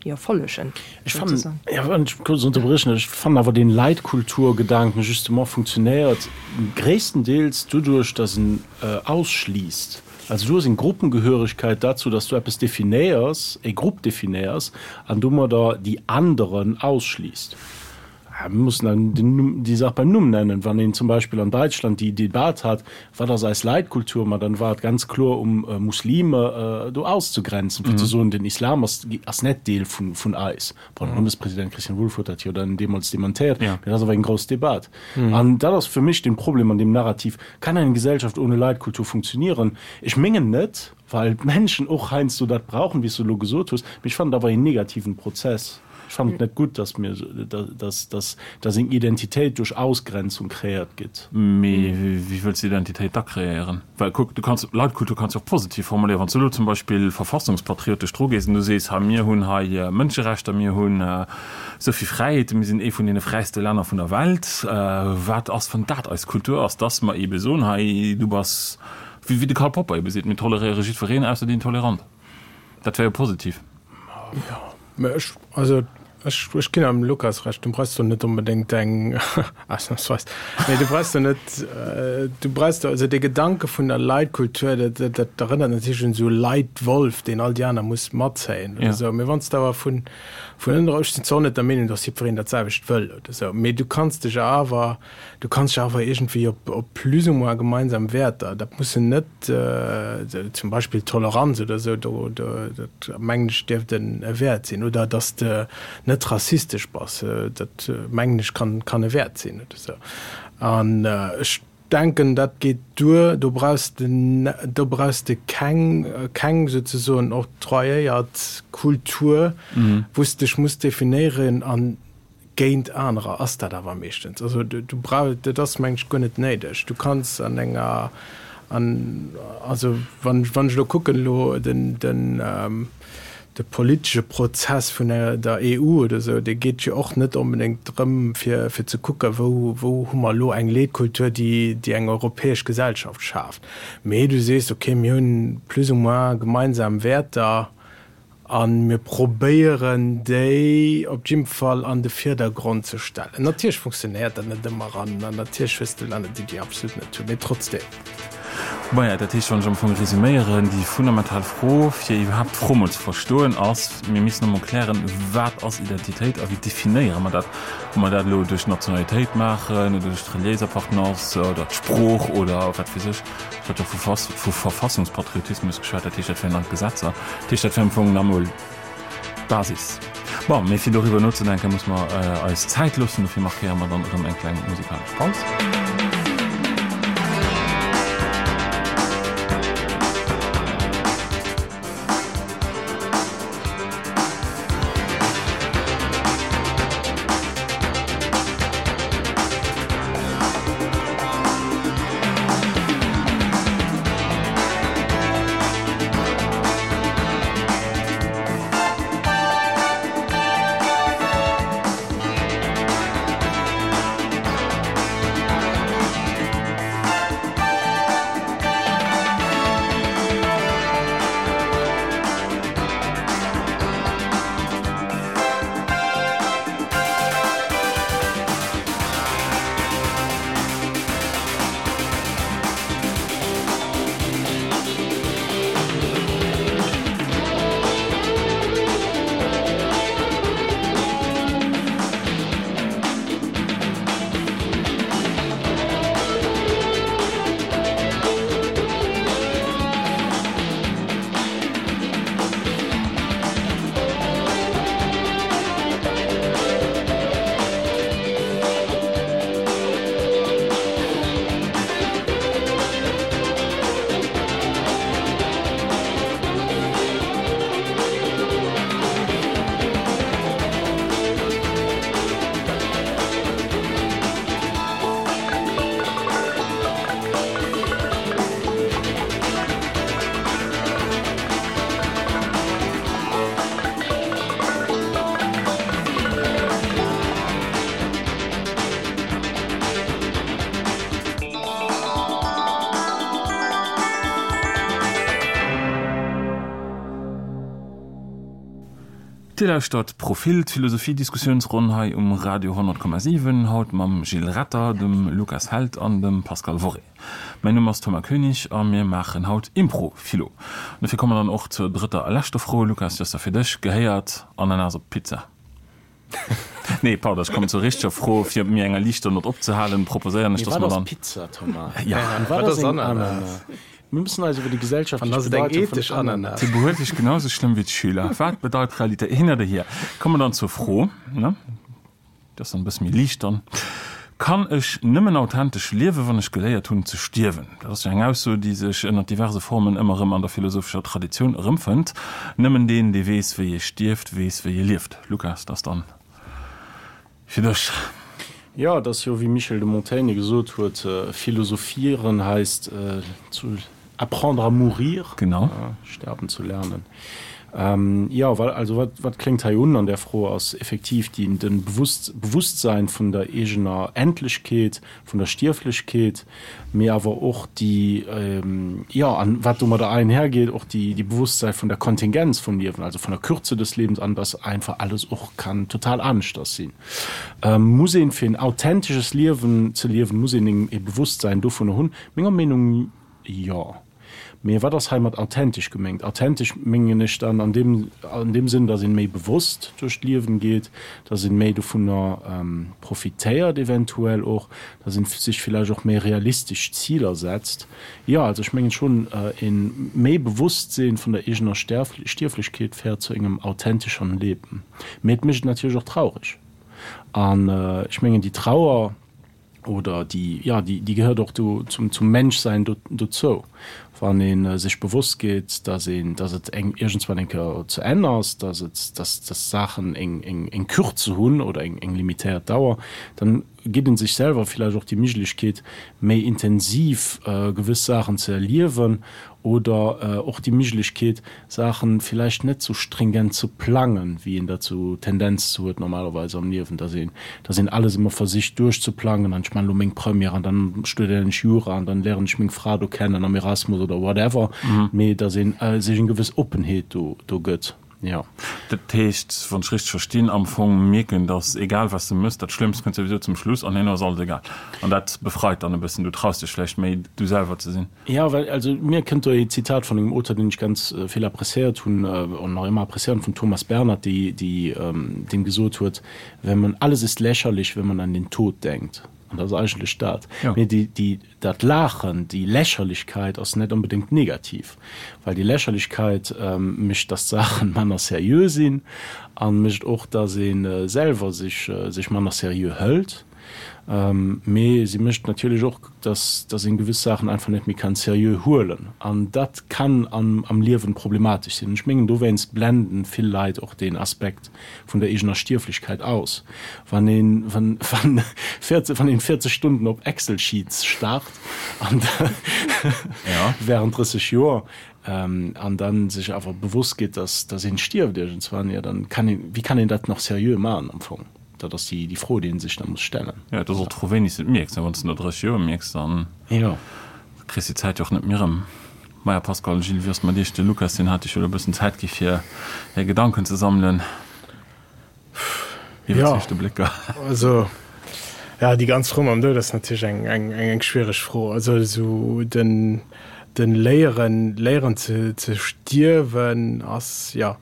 jo follegen. Ech fannen, jo, wann ech kuerz unterbréchen, ech fannen awer deen Leitkulturgedanken justement funktionéiert gréisstendeels doduerch, dass en ausschliisst. Also du hues eng Gruppengehörigkeit dazu, dass du eppes definéiers, e Grupp definéiers an domadder déi anderen ausschliisst. Mir mussen dann den Numm, déi Saach beim Numm nennen. Wann een zum Beispill an Däitschland déi Debat hat, wat ass eis Leitkultur, ma dann war et ganz kloer um Muslime do auszegrenzen, fir ze soen, den Islam ass, ass net Deel vun, vun eis. Bon, de Bundespräsident Christian Wulff huet dat jo dann deemools dementéiert, mee dat ass awer eng grouss Debat. An dat ass fir mech den Problem an deem Narrativ, Kann eine Gesellschaft ohne Leitkultur funktionieren? Ech mengen net, well d'Menschen och heiansdo dat brauchen, wéi s du elo gesot hues, mee ech fannen et awer een negativen Prozess. Ech fannen et net gutt, dass mir, dass, dass, dass eng Identitéit duerch Ausgrenzung kreéiert gëtt. Mee wéi wëlls de Identitéit da kreéieren? Well kuck, du kanns, Leitkultur kanns du och positiv formuléieren. Wann s du elo zum Beispill verfassungspatriotesch dru gees an du sees, hei mir hunn hei Mënscherechter, mir hunn esou vill Fräiheeten, mir sinn ee vun deene fräiste Länner vun der Welt, wat ass, wann dat eis Kultur ass, dass mer eebe soen, hei du bass, wéi de Karl Popper eebe seet, mir toleréiere jiddwereen ausser déi Intolerant. Dat wär jo positiv. Jo, mä ech, also ech, ech ginn am Lukas Recht, du brauchs do net onbedéngt eng, ausnahmsweis, nee, du brauchs do net, du brauchs do, also dee Gedanke vun der Leitkultur, dat, dat, dat erënnert natierlech un esou Leitwolf, deen all déi aner muss matzéien oder esou. Mee wann s de awer vun, vun ënner, ech sinn zwar och net der Meenung, datt jiddwereen dat selwecht wëll oder esou, mee du kanns dech awer, du kanns dech awer iergendwéi op, op plus ou moins gemeinsam Wäerter, dat mussen net, zum Beispill Toleranz oder esou, do, do, dat mengen ech dierft en e Wäert sinn, oder datt s de net rassistesch bass, dat mengen ech kann, kann e Wäert sinn oder esou. An ech denken, dat geet duer, do brauchs de, do brauchs de keng, keng souzesoen octroyéiert Kultur, wou s de dech muss definéieren an Géint anerer ass dat awer meeschtens. Also du brauch, dat ass meng ech guer net néideg. Du kanns an enger, an also wann wann ech elo kucken elo den den de politesche Prozess vun der EU oder esou, dee geet jo och net onbedéngt drëm fir fir ze kucken, wou wou hu mer elo eng Leetkultur, déi déi eng europäesch Gesellschaft schaaft. Mee du sees, okay, mir hunn plus ou moins gemeinsam Wäerter, A mir probéieren déi op jidde Fall an de Virdergrond ze stellen. Natierlech funktionéiert dat net ëmmer an natierlech hues de Länner, déi déi absolut net hunn, mee trotzdeem. Maja, dat heescht, wann ech am Fong resuméieren, déi fundamental Fro, fir iwwerhaapt d'Fro mol ze verstoen, ass, mir missen emol klären, wat ass Identitéit a wéi definéiere mer dat? Ob mer dat elo duerch d'Nationalitéit maachen oder duerch d'reliéis Appartenance oder d'Sprooch oder wat weess ech. Ech hat jo vu Verfassungspatriotismus geschwat, dat heescht, dat wären dann d'Gesetzer. Dat heescht, dat wär am Fong nach emol d'Basis. Bon, mee fir doriwwer nozedenken, muss mer eis Zäit loossen. Dofir markéiere mer dann erëm eng kleng musikalesch Paus. Dir lauschtert Profil, d'Philosophie-Diskussiounsronn hei um Radio 100,7, haut mam Gilles Retter, dem Lukas Held an dem Pascal Worré. Mäin Numm ass Thomas Koenig a mir maachen haut Impro-Philo. An dofir komme mer dann och zur drëtter a leschter Fro. Lukas, déi ass da fir dech. Gehéiert Ananas op d'Pizza? Nee, pardon, ech kommen zur richteger Fro. Fir op méi enger liichter Nott opzehalen, proposéieren ech, Mee dass wat mer ass dann. Pizza, Thomas? Ja. An wat Wat ass ass eng Ananas? Ananas? Mir müssen eis iwwer déi An gesellschaftlech ass et eng Bedeitung vun ethesch Ananas? Se behuelt sech genau esou schlëmm wéi d'Schüler. Wat bedeit Realitéit? Hin oder hier. Komme mer dann zur Fro, ne? Déi ass dann e bësse méi liicht dann. Kann ech nëmmen authentesch liewen, wann ech geléiert hunn ze stierwen? Dat ass jo eng Ausso, déi sech ënner diverse Formen ëmmer erëm an der philosophescher Traditioun erëmfënnt. Nëmmen deen, dee weess, wéi ee stierft, weess, wéi ee lieft. Lukas, dat ass dann fir dech. Jo, et ass jo, wéi Michel de Montaigne gesot huet, Philosophieren heißt zu apprendre à mourir, Genau. sterben zu lernen. Jo, well, also wat, wat kléngt hei un an där Fro ass effektiv déi, de Bewusst, Bewusstsein vun der eegener Endlechkeet, vun der Stierflechkeet, mee awer och déi, jo, an wat domadder einhergeht, och déi, déi Bewusstsein vun der Kontingenz vum Liewen, also von der Kürze des Lebens an dass einfach alles och kann total aneschters sinn. Muss een, fir en authentesches Liewen ze liewen, muss een e Bewusstsein dovunner hunn? Menger Meenung jo. Mee wat ass hei mat authentesch geméngt? Authentesch mengen ech dann an deem, an deem Sënn, dass een méi bewosst duerch d'Liewen geet, dass een méi dovunner profitéiert eventuell och, dass een sech villäicht och méi realistesch Ziler setzt. Jo, also ech mengen schonn, een méi Bewosstsinn vun der eegener Stierflechkeet féiert zu engem authentischeren Leben. Mee et mécht et natierlech och traureg. An ech mengen déi Trauer, oder déi, jo, déi, déi gehéiert och do zum, zum Menschsein do, dozou. Wann ee sech bewosst gétt, dass een, dass et eng, iergendswann eng Kéier zu Enn ass, dass et, dass, dass Saachen eng, eng, eng Kürze hunn oder eng, eng limitéiert Dauer, dann gitt ee sech selwer villäicht och déi Miglechkeet, méi intensiv gewëss Saachen ze erliewen oder och déi Miglechkeet, Saachen villäicht net sou stringent ze plangen, wéi een dat sou Tendenz zu huet normalerweis am Liewen, dass een, dass een alles ëmmer versicht duerchzeplangen an ech man elo meng Première an dann studéieren ech Jura an dann léieren ech meng Fra do kennen am Erasmus oder whatever, mee dass een sech eng gewëss Oppenheet do, do gëtt, jo. Dat heescht, wann ech richteg verstinn, am Fong mierken, dass egal wat s de mëss, dat Schlëmmst kënnt souwisou zum Schluss an herno ass alles egal. An dat befreit dann e bëssen, du traus dech vläicht méi du selwer ze sinn. Jo, well, also mir kënnt do ee Zitat vun engem Auteur, deen ech ganz vill appréciéiert hunn an nach ëmmer appréciéieren, vum Thomas Bernhard, déi, déi, deen gesot huet, Wenn man, alles ist lächerlich, wenn man an den Tod denkt. An dat ass eigentlech dat. Jo. Mee déi, déi, dat Laachen, déi Lächerlichkeit ass net onbedéngt negativ, well déi Lächerlichkeit mécht, dass d'Saachen manner seriö sinn a mécht och, dass ee selwer sech, sech manner seriö hëlt. Mee si mécht natierlech och, dass dass een gewëss Saachen einfach net méi kann seriö huelen. An dat kann am am Liewen problematesch sinn. Ech mengen dowéinst blenden vill Leit och deen Aspekt vun der eegener Stierflechkeit aus. Wann een wann wann 40 wann een 40 Stunden op Excel Sheets starrt an während 30 Joer an dann sech awer bewosst gétt, dass dass een stierft iergendswann, jo dann kann een wéi kann een dat nach seriö maachen am Fong? Dat ass déi Fro, déi ee sech da muss stellen. Jo, et ass och d'Fro, wéini s de et mierks. Wann s de no 30 Joer mierks, dann kriss de d'Zäit jo och net méi erëm. Maja, Pascal, Gilles, wéi ass et mat iech? De Lukas, deen hat iech jo elo e bëssen Zäit gi fir är Gedanken ze sammelen. Iwwerzeegte Blécker. Jo, also, jo, déi ganz Fro mam Doud ass natierlech eng, eng, eng schwiereg Fro. Also esou den, den Léieren, léieren ze, ze stierwen ass, jo,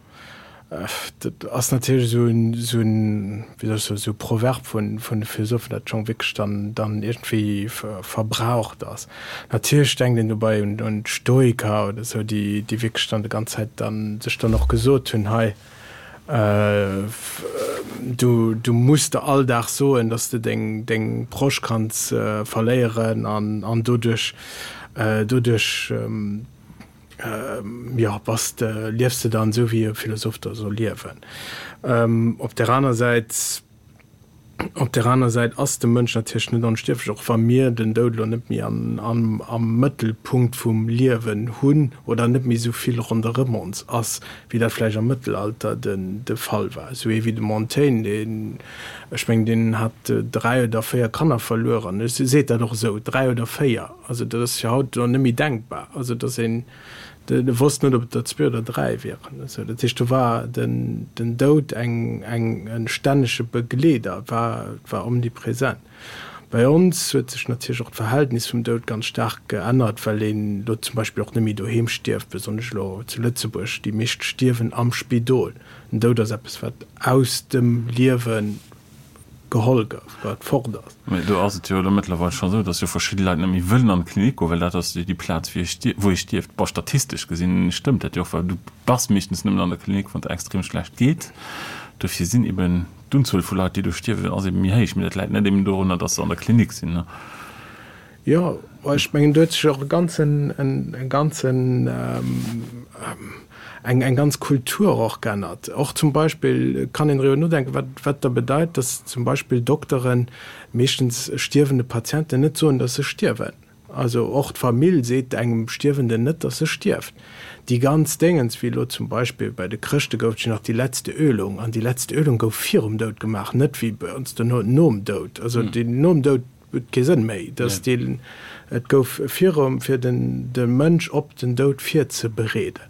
Dat ass natierlech esou en, esou en, wéi soll ech soen, esou e Proverb vun, vun de Philosophen, dat schonn wierklech dann, dann iergendwéi verbraucht ass. Natierlech denkt een dobäi un, un d'Stoiker oder esou, déi, déi wierklech dann déi ganz Zäit dann sech dann och gesot hunn, hei, du, du muss der all Dag soen, dass de deng, deng Proche kanns verléieren an, an doduerch, doduerch, Jo, bass de, liefs de dann esou wéi e Philosoph da soll liewen? Op där aner Säit, op där aner Säit ass de Mënsch natierlech net onstierflech, och wa mir den Doud elo net méi an, an, am Mëttelpunkt vum Liewen hunn oder net méi esou vill ronderëm ons ass, wéi dat vläicht am Mëttelalter den, de Fall war. Esou ee wéi de Montaigne, deen, ech mengen, deen hat 3 oder 4 Kanner verluer an e seet dat och esou, 3 oder 4. Also dat ass jo haut elo net méi denkbar, also datt een, E wosst net, ob et der zwee oder dräi wieren. Esou, dat heescht, do war den, den Doud eng, eng, e stännege Begleeder, war, war omnipresent. Bei ons huet sech natierlech och d'Verhältnis vum Doud ganz staark geännert, well een elo zum Beispill och net méi doheem stierft, besonnesch elo zu Lëtzebuerg. Déi meescht stierwen am Spidol. Den Doud ass eppes, wat aus dem Liewe geholl gouf, wat fort ass. Mee do ass et jo elo mëttlerweil scho esou, dass jo verschidde Leit net méi wëllen an d'Klinik goen, well dat ass jo déi Plaz, wou ee stierft. Bon, statistesch gesinn stëmmt dat jo och, well du bass meeschtens nëmmen an der Klinik, wann et der extrem schlecht geet. Dofir sinn eben d'Unzuel vu Leit, déi do stierwen, ass eben méi héich. Mee dat läit net eben dorunner, dass se an der Klinik sinn. Jo, ech mengen, do huet sech och e ganzen, e ganzen, eng, eng ganz Kultur och geännert. Och zum Beispill kann een driwwer nodenken, wat, wat da bedeit, dass zum Beispill Dokteren meeschtens stierwende Patienten net soen, dass se stierwen. Also och d'Famill seet engem Stierwenden net, dass e stierft. Déi ganz Déngens, wéi elo zum Beispill bei de Chrëschte gouf et jo nach déi letzte Ölung, an déi letzte Ölung gouf virum Doud gemaach, net wéi bei ons dono nom Doud. Also déi nom Doud huet kee Sënn méi, dass déi, et gouf virum, fir den de Mënsch op den Doud virzebereeden.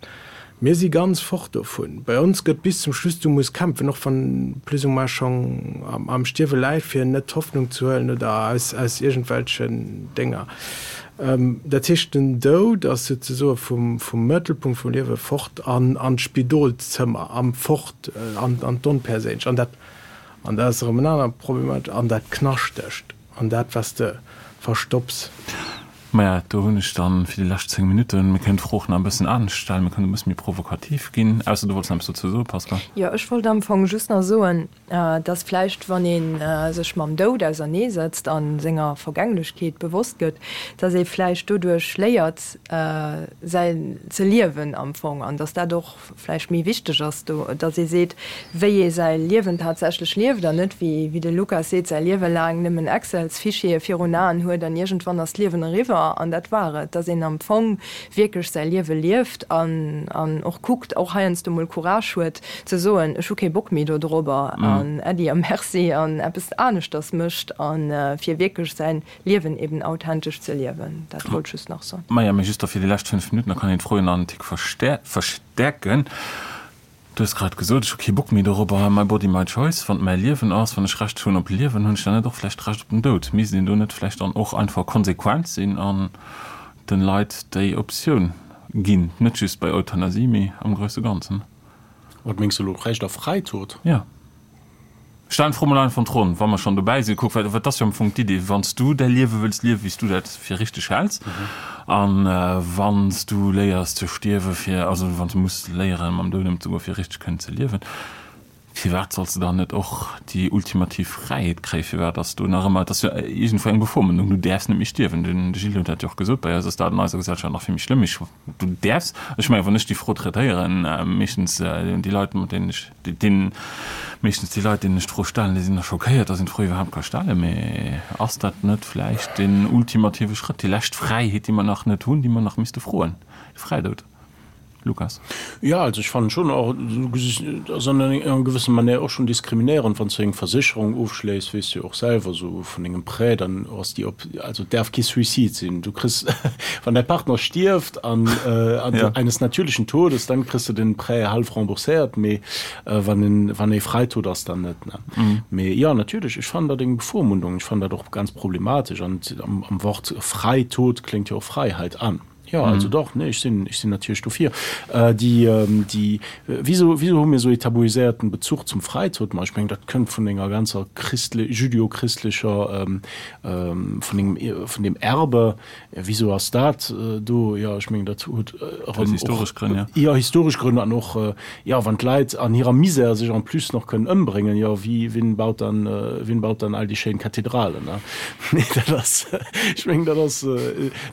Mir si ganz fort dovun. Bei ons gëtt bis zum Schluss, du muss kämpfen, och wann plus ou moins schonn am Stierwe läit, fir net d'Hoffnung ze huelen oder aus aus iergendwelchen Dénger. Dat heescht, den Doud ass souzesoe vum vum Mëttelpunkt vum Liewe fort an an d'Spidolszëmmer, am fort an an d'Onperséinlech. An dat An dat ass erëm en anere Problematesch, an dat Knaschtegt, an dat, wat s de verstopps. Maja, do hunn ech dann fir déi lescht 10 Minutten, mir kënnen d'Fro och nach e bëssen anescht stellen, mir kënnen e bësse méi provokativ ginn, ausser du wollts nach eppes dozou soen, Pascal. Jo, ech wollt am Fong just nach soen, dass vläicht, wann ee sech mam Doud auserneesetzt a senger Vergänglechkeet bewosst gëtt, dass ee vläicht doduerch léiert, säi ze liewen am Fong, an dass dat och vläicht méi wichteg ass do, datt ee seet, wéi ee säi Liewen tatsächlech lieft an net, wéi wéi de Lukas seet, säi Liewe laang nëmmen Excels-Fichiere virun Aen huet an iergendwann ass d'Liewen eriwwer an dat war et. Datt een am Fong wierklech säi Liewe lieft an an och kuckt, och heiansdo mol Courage huet ze soen, ech hu kee Bock méi dodrobber an Äddi a Merci an eppes aneschters mécht a fir wierklech säin Liewen eben authentesch ze liewen, dat wollt ech just nach soen. Maja, mee just da fir déi lescht 5 Minutten, da kann een d'Fro jo nach en Tick verstäerken. Du hues grad gesot, ech hu kee Bock méi dorobber, my body, my choice. Wann et mäi Liewen ass, wann ech Recht hunn op Liewen, hunn ech dann net och vläicht Recht op den Doud? Misst een do net vläicht dann och einfach konsequent sinn an den Leit déi Optioun ginn? Net just bei Euthanasie, mee am grousse Ganzen. Wat mengs de elo, Recht auf Freitod? Jo. Stellen d'Fro mol einfach an d'Ronn, wa mer schonn dobäi sinn. Kuck, well dat ass jo am Fong d'Idee, wann s du däi Liewe wëlls liewen, wéi s du dat fir richteg häls, a wann s du léiers ze stierwe fir, also wann s du muss léieren, mam Doud ëmzegoen, fir richteg kënnen ze liewen, firwat solls de dann net och déi ultimativ Fräiheet kréien? Firwat ass do nach ëmmer, et ass jo iergendwou eng Bevormundung, du däerfs net méi stierwen. Den Gilles huet dat jo och gesot, bei eis ass dat an eiser Gesellschaft nach vill méi schlëmm. Ech, du däerfs, ech mengen, wann ech déi Fro traitéieren, meeschtens déi Leit, mat deenen ech, Deen, meeschtens déi Leit, deenen ech d'Fro stellen, déi sinn da schockéiert, dass een d'Fro iwwerhaapt ka stellen. Mee ass dat net vläicht deen ultimative Schrëtt, déi lescht Fräiheet, déi mer nach net hunn, déi mer nach misste froen, de Fräidoud? Lukas. Jo, also ech fannen schon och, et ass an enger gewësser Manière och schon diskriminéierend, wann s du eng Versécherung ofschléiss, weess du jo och selwer, esou vun dengem Prêt, dann ass déi op, also et däerf kee Suicide sinn. Du kriss, wann däi Partner stierft an eines natürlichen Todes, dann kriss de den Prêt half rembourséiert, mee wann en, wann ee Freitod ass, dann net, ne. Mee jo, natierlech, ech fannen dat eng Bevormundung, ech fannen dat och ganz problematesch an am Wort Freitod kléngt jo och Freiheit an. Jo, also dach, nee, ech sinn, ech sinn natierlech dofir. Déi, déi, wieso, wieso hu mir esou ee tabuiséierten Bezuch zum Freitod? Ma ech mengen, dat kënnt vun enger ganzer christle-, jüdeo-christlecher, vun engem, vun deem Erbe. Wieso ass dat do? Jo, ech mengen, dat huet erëm och. Historesch Grënn, jo. Jo, historesch Grënn an och, jo, wann d'Leit an hirer Misär sech en plus nach kënnen ëmbréngen, jo, wie, wien baut dann, wien baut dann all déi schéin Kathedralen, ne? Nee, dat ass, ech mengen, dat ass.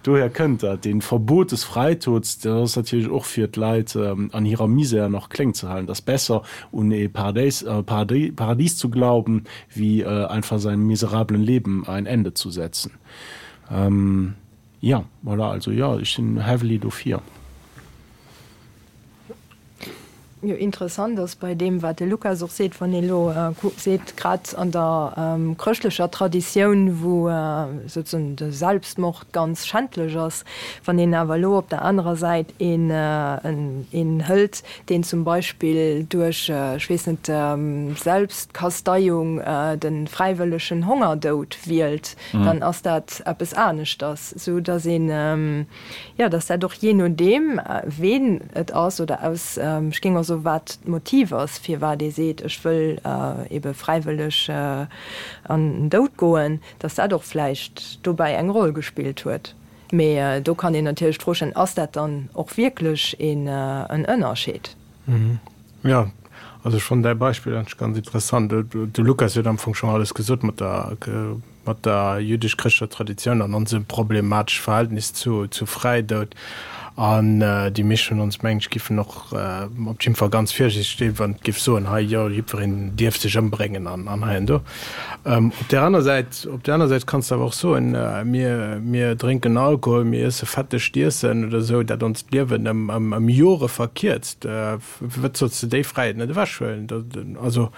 Dohier kënnt dat. Dee Verbot des Freitods, dat ass natierlech och fir d'Leit an hirer Misär nach kléng ze halen. Et ass besser un ee Paradéis, Paradies zu glauben, wéi einfach seinem miserablen Leben ein Ende zu setzen. Jo, voilà, also jo, ech sinn heavily dofir. Jo, interessant ass bei deem, wat de Lukas och seet, wann ee elo seet, grad an der chrëschtlecher Traditioun, wou souzesoen de Selbstmord ganz schändlech ass, wann een awer elo op der anerer Säit een een hëlt, deen zum Beispill duerch, ech weess net, Selbstkasteiung de fräiwëllegen Hongerdoud wielt, dann ass dat eppes aneschters, esou datt een, Jo, dass dat och jee nodeem, ween et ass oder aus, ech géing och soen, wat d'Motiv ass, firwat ee seet, ech wëll ebe fräiwëlleg an den Doud goen, dass dat och vläicht dobäi eng Roll gespillt huet. Mee do kann een natierlech d'Fro stellen, Ass dat dann och wierklech een Ënnerscheed? Jo, also ech fannen däi Beispill eigentlech ganz interessant. De Lukas huet am Fong schonn alles gesot mat der, mat der jüdesch-chrëschtlecher Traditioun an onsem problematesch Verhältnis zu, zu Fräidoud. An déi meescht vun ons, mengen ech, giffen och op jidde Fall ganz virsiichteg sinn, wann et giff soen, hei, jo, jiddwereen dierf sech ëmbréngen an, an hei an do. Op där aner Säit, op där aner Säit kanns de awer och soen, mir, mir drénken Alkohol, mir iesse fettegt Iessen oder esou, dat ons d'Liewen ëm, ëm, ëm Jore verkierzt. Firwat solls de déi Fräiheet net ewechhuelen? Also,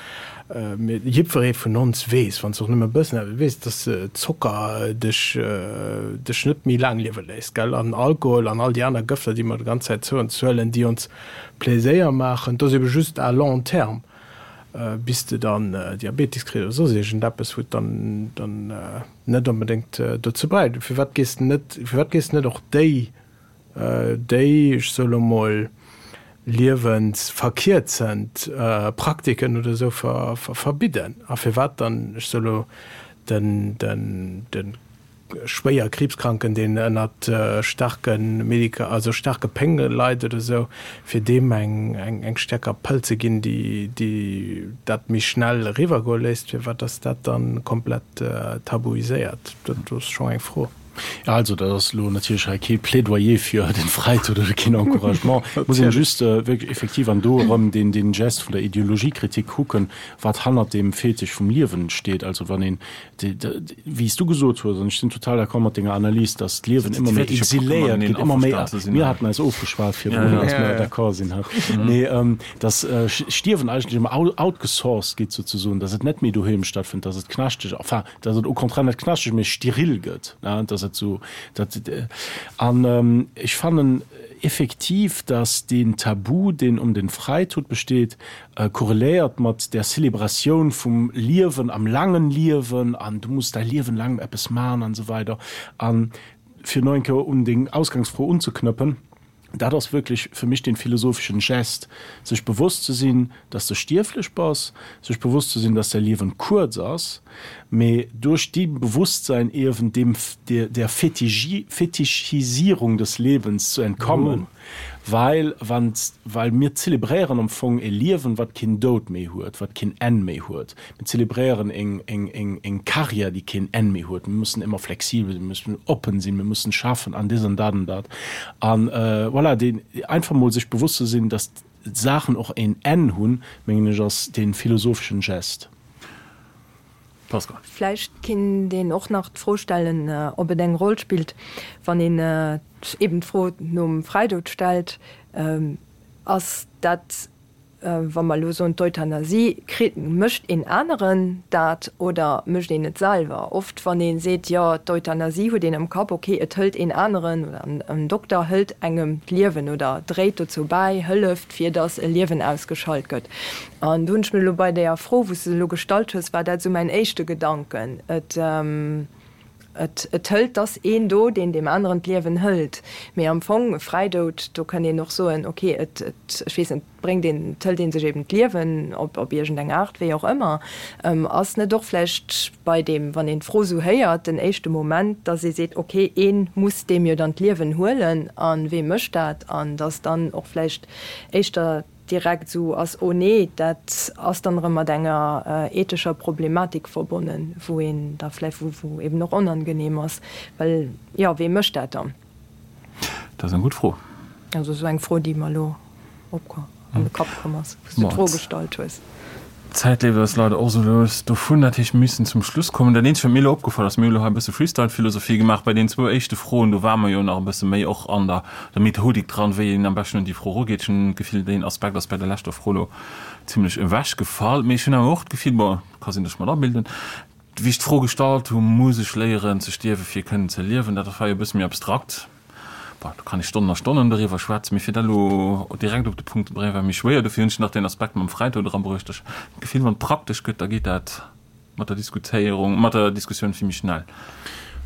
jiddweree vun ons weess, wann s de och nëmme e bëssen eppes weess, dass Zocker dech, dech net méi laang liewe léisst, gell? An Alkohol an all déi aner Gëfter, déi mer déi ganz Zäit zou ons huelen, déi ons Pleséier maachen, dat ass ebe just à long terme. bis de dann Diabetes kriss oder soss iergendeppes, wou et dann dann net onbedéngt dozou bräicht. Firwat gees de net, firwat gees de net och déi, déi, ech soe lo mol, liewensverkierzend Praktiken oder esou verbidden? A firwat dann, ech soe lo, den, den, den schwéier Kriibskranken, deen ënnert staarke Medika-, also staarke Pénge leit oder esou, fir deem eng, eng stäerker Pëll ze ginn, déi, déi dat méi schnell eriwwergoe léisst, firwat ass dat dann komplett tabuiséiert? Dat ass schonn eng Fro. Jo, also dat ass elo natierlech hei kee Plädoyer fir den Fräitod oder keen Encouragement. Et muss een just wierklech effektiv an do erëm deen, deen Gest vun der Ideologiekritik kucken, wat hannert deem Fetisch vum Liewen steet. Also wann een Wéi s du gesot hues, an ech sinn total d'accord mat denger Analys, datt d'Liewen ëmmer méi exiléiert gëtt, ëmmer méi, mir haten eis ofgeschwat virdrun, datt mir d'accord sinn, mee datt Stierwen eigentlech ëmmer outgesourced gétt souzesoen, datt et net méi doheem stattfënnt, datt et knaschteg, enfin, datt et au contraire net knaschteg, mee steril gëtt, datt et esou, datt, an ech fannen effektiv, datt deen Tabu, deen ëm den Fräitod besteet, Korreléiert mat der Celebratioun vum Liewen am laangen Liewen an du muss däi Liewen laang eppes man an esou weider. An fir no eng Kéier un deng Ausgangsfro unzeknëppen, dat ass wierklech fir mech dee philosopheschen Gest, sech bewosst ze sinn, dass de stierflech bass, sech bewosst ze sinn, dass däi Liewen kuerz ass, mee duerch dee Bewusstsein iewen deem der Fetischisierung des Lebens zu entkommen. Well wann, well mir zelebréieren am Fong e Liewen, wat keen Doud méi huet, wat keen Enn méi huet. Mir zelebréieren eng, eng, eng, eng Carrière, déi keen Enn méi huet. Mir mussen ëmmer flexibel sinn, mir mussen oppen sinn, mir mussen schaffen an dës an dat an dat. An voilà, deen, einfach mol sech bewosst ze sinn, dass d'Saachen och een Enn hunn, mengen ech, ass dee philosopheschen Gest. Pascal. Vläicht kinnt een och nach d'Fro stellen, ob et eng Roll spillt, wann een eben d'Fro nom Fräidoud stellt, Ass dat, wa mer elo soen d'Euthanasie, kritt, mécht een aneren dat oder mécht een et selwer? Oft wann ee seet, jo d'Euthanasie, huet een am Kapp, okay, et hëlt een aneren oder en Dokter hëlt engem d'Liewen oder dréit dozou bäi, hëlleft, fir datt e Liewen ausgeschalt gëtt. An do hunn ech mir elo bei deeër Fro, wou s de se elo gestallt hues, war dat esou mäin éischte Gedanken. Et, et, et hëlt, 't ass een do, deen deem aneren d'Liewen hëlt. Mee am Fong, e Fräidoud, do kënnt een och soen, ok, et, et, ech weess net, bréngt een, et hëlt ee sech eben d'Liewen op, op iergendeng Aart, wéi och ëmmer. Ass net och vläicht bei deem, wann een d'Fro esou héiert, den éischte Moment, datt ee seet, ok, ee muss deem jo dann d'Liewen huelen, a wee mécht dat? An datt dann och vläicht éischter direkt esou ass, oh nee, dat ass dann erëm mat enger ethescher Problematik verbonnen, wou een da vläicht, wou, wou eben och onangenehm ass, well, jo, wee mécht dat dann? Dat ass eng gutt Fro. Also esou eng Fro, déi mer elo op an de Kapp komm ass, wou s du d'Fro gestallt hues. D'Zäit leeft eis leider och esou lues dovun. Dat heescht, mir müssen zum Schluss kommen. Dat eenzegt, wat mir elo opgefall ass, mir hu elo hei e bësse Freestyle-Philosophie gemaach bei deenen zwou éischte Froen. Do ware mer jo nach e bësse méi och an der der Methodik dran, wéi een am beschten un déi Fro erugeet. Ech hunn d'Gefill, deen Aspekt ass bei der leschter Fro elo zimlech ewechgefall. Mee ech hunn awer och d'Gefill, bon, ka sinn, datt ech mer et abilden, wéi ech d'Fro gestallt hu, Muss ech léieren ze stierwen, fir kënnen ze liewen? Dat war jo e bësse méi abstrakt. Bon, do kann ee Stonnen a Stonnen doriwwer schwätzen, mee fir dat elo direkt op de Punkt ze bréngen, war méi schwéier. Dofir hunn ech nach deen Aspekt mam Fräitoud erabruecht. Ech hunn d'Gefill, wann et praktesch gëtt, da geet dat mat der Diskutéierung, mat der Diskussioun vill méi schnell.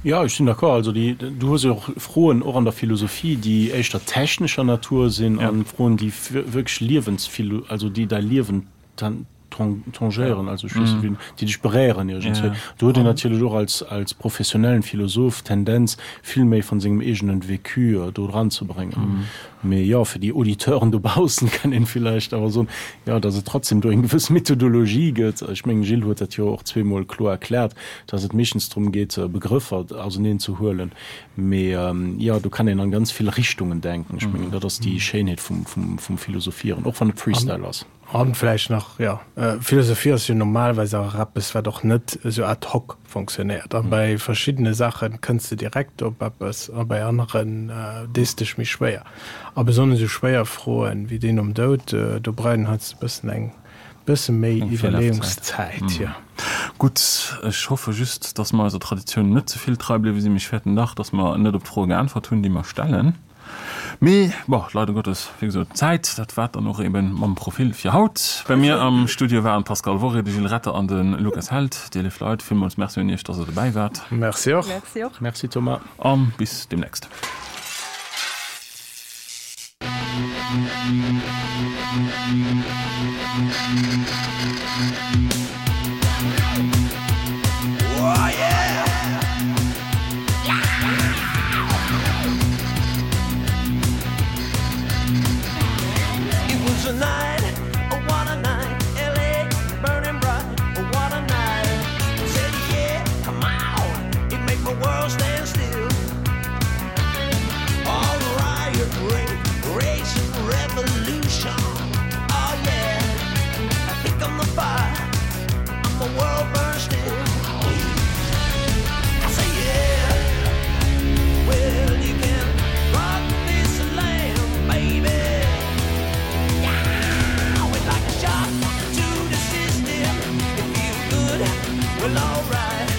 Jo, ech sinn d'accord. Also déi, du hues jo och Froen och an der Philosophie, déi éischter technescher Natur sinn an Froen, déi wierklech Liewensphilo-, also déi däi Liewen tangéieren, also ech weess net wéi, déi dech beréieren iergendswéi. Do huet een natierlech och als, als professionellen Philosoph d'Tendenz, vill méi von sengem eegenen Vécu do dran ze bréngen. Mee jo, fir déi Auditeuren dobaussen kann een villäicht awer soen, jo, datt et trotzdem do eng gewëss Methodologie gëtt. Ech mengen, Gilles huet dat jo och zweemol kloer erkläert, datt et meeschtens drëm geet, Begrëffer auseneen ze huelen. Mee jo, do kann een an ganz vill Richtungen denken. Ech mengen, dat ass déi Schéinheet vum, vum, vum Philosophieren, och wann et Freestyle ass. An vläicht nach, jo, Philosophie ass jo normalerweis awer eppes, wat och net esou ad hoc fonctionnéiert. A bei verschiddene Saache kënns de direkt op eppes a bei aneren dees dech méi schwéier. A besonnesch esou schwéier Froen wéi déi nom Doud, do brauch een heiansdo e bëssen eng bësse méi Iwwerleeungszäit, jo. Gutt, ech hoffe just, dass mer eiser Traditioun net ze vill trei bliwwe sinn. Mee ech fäerten dach, dass mer net op d'Froe geäntwert hunn, déi mer stellen. Mee bon, leider Gottes, wéi gesot, d'Zäit, dat war et dann och eben mam Profil fir haut. Bei mir am Studio waren d'Pascale Worré, de Gilles Retter an de Lukas Held. Dir léif Leit, villmools Merci un Iech, dass Der dobäi waart. Merci och. Merci och. Merci Thomas. A bis deemnächst. Well, alright.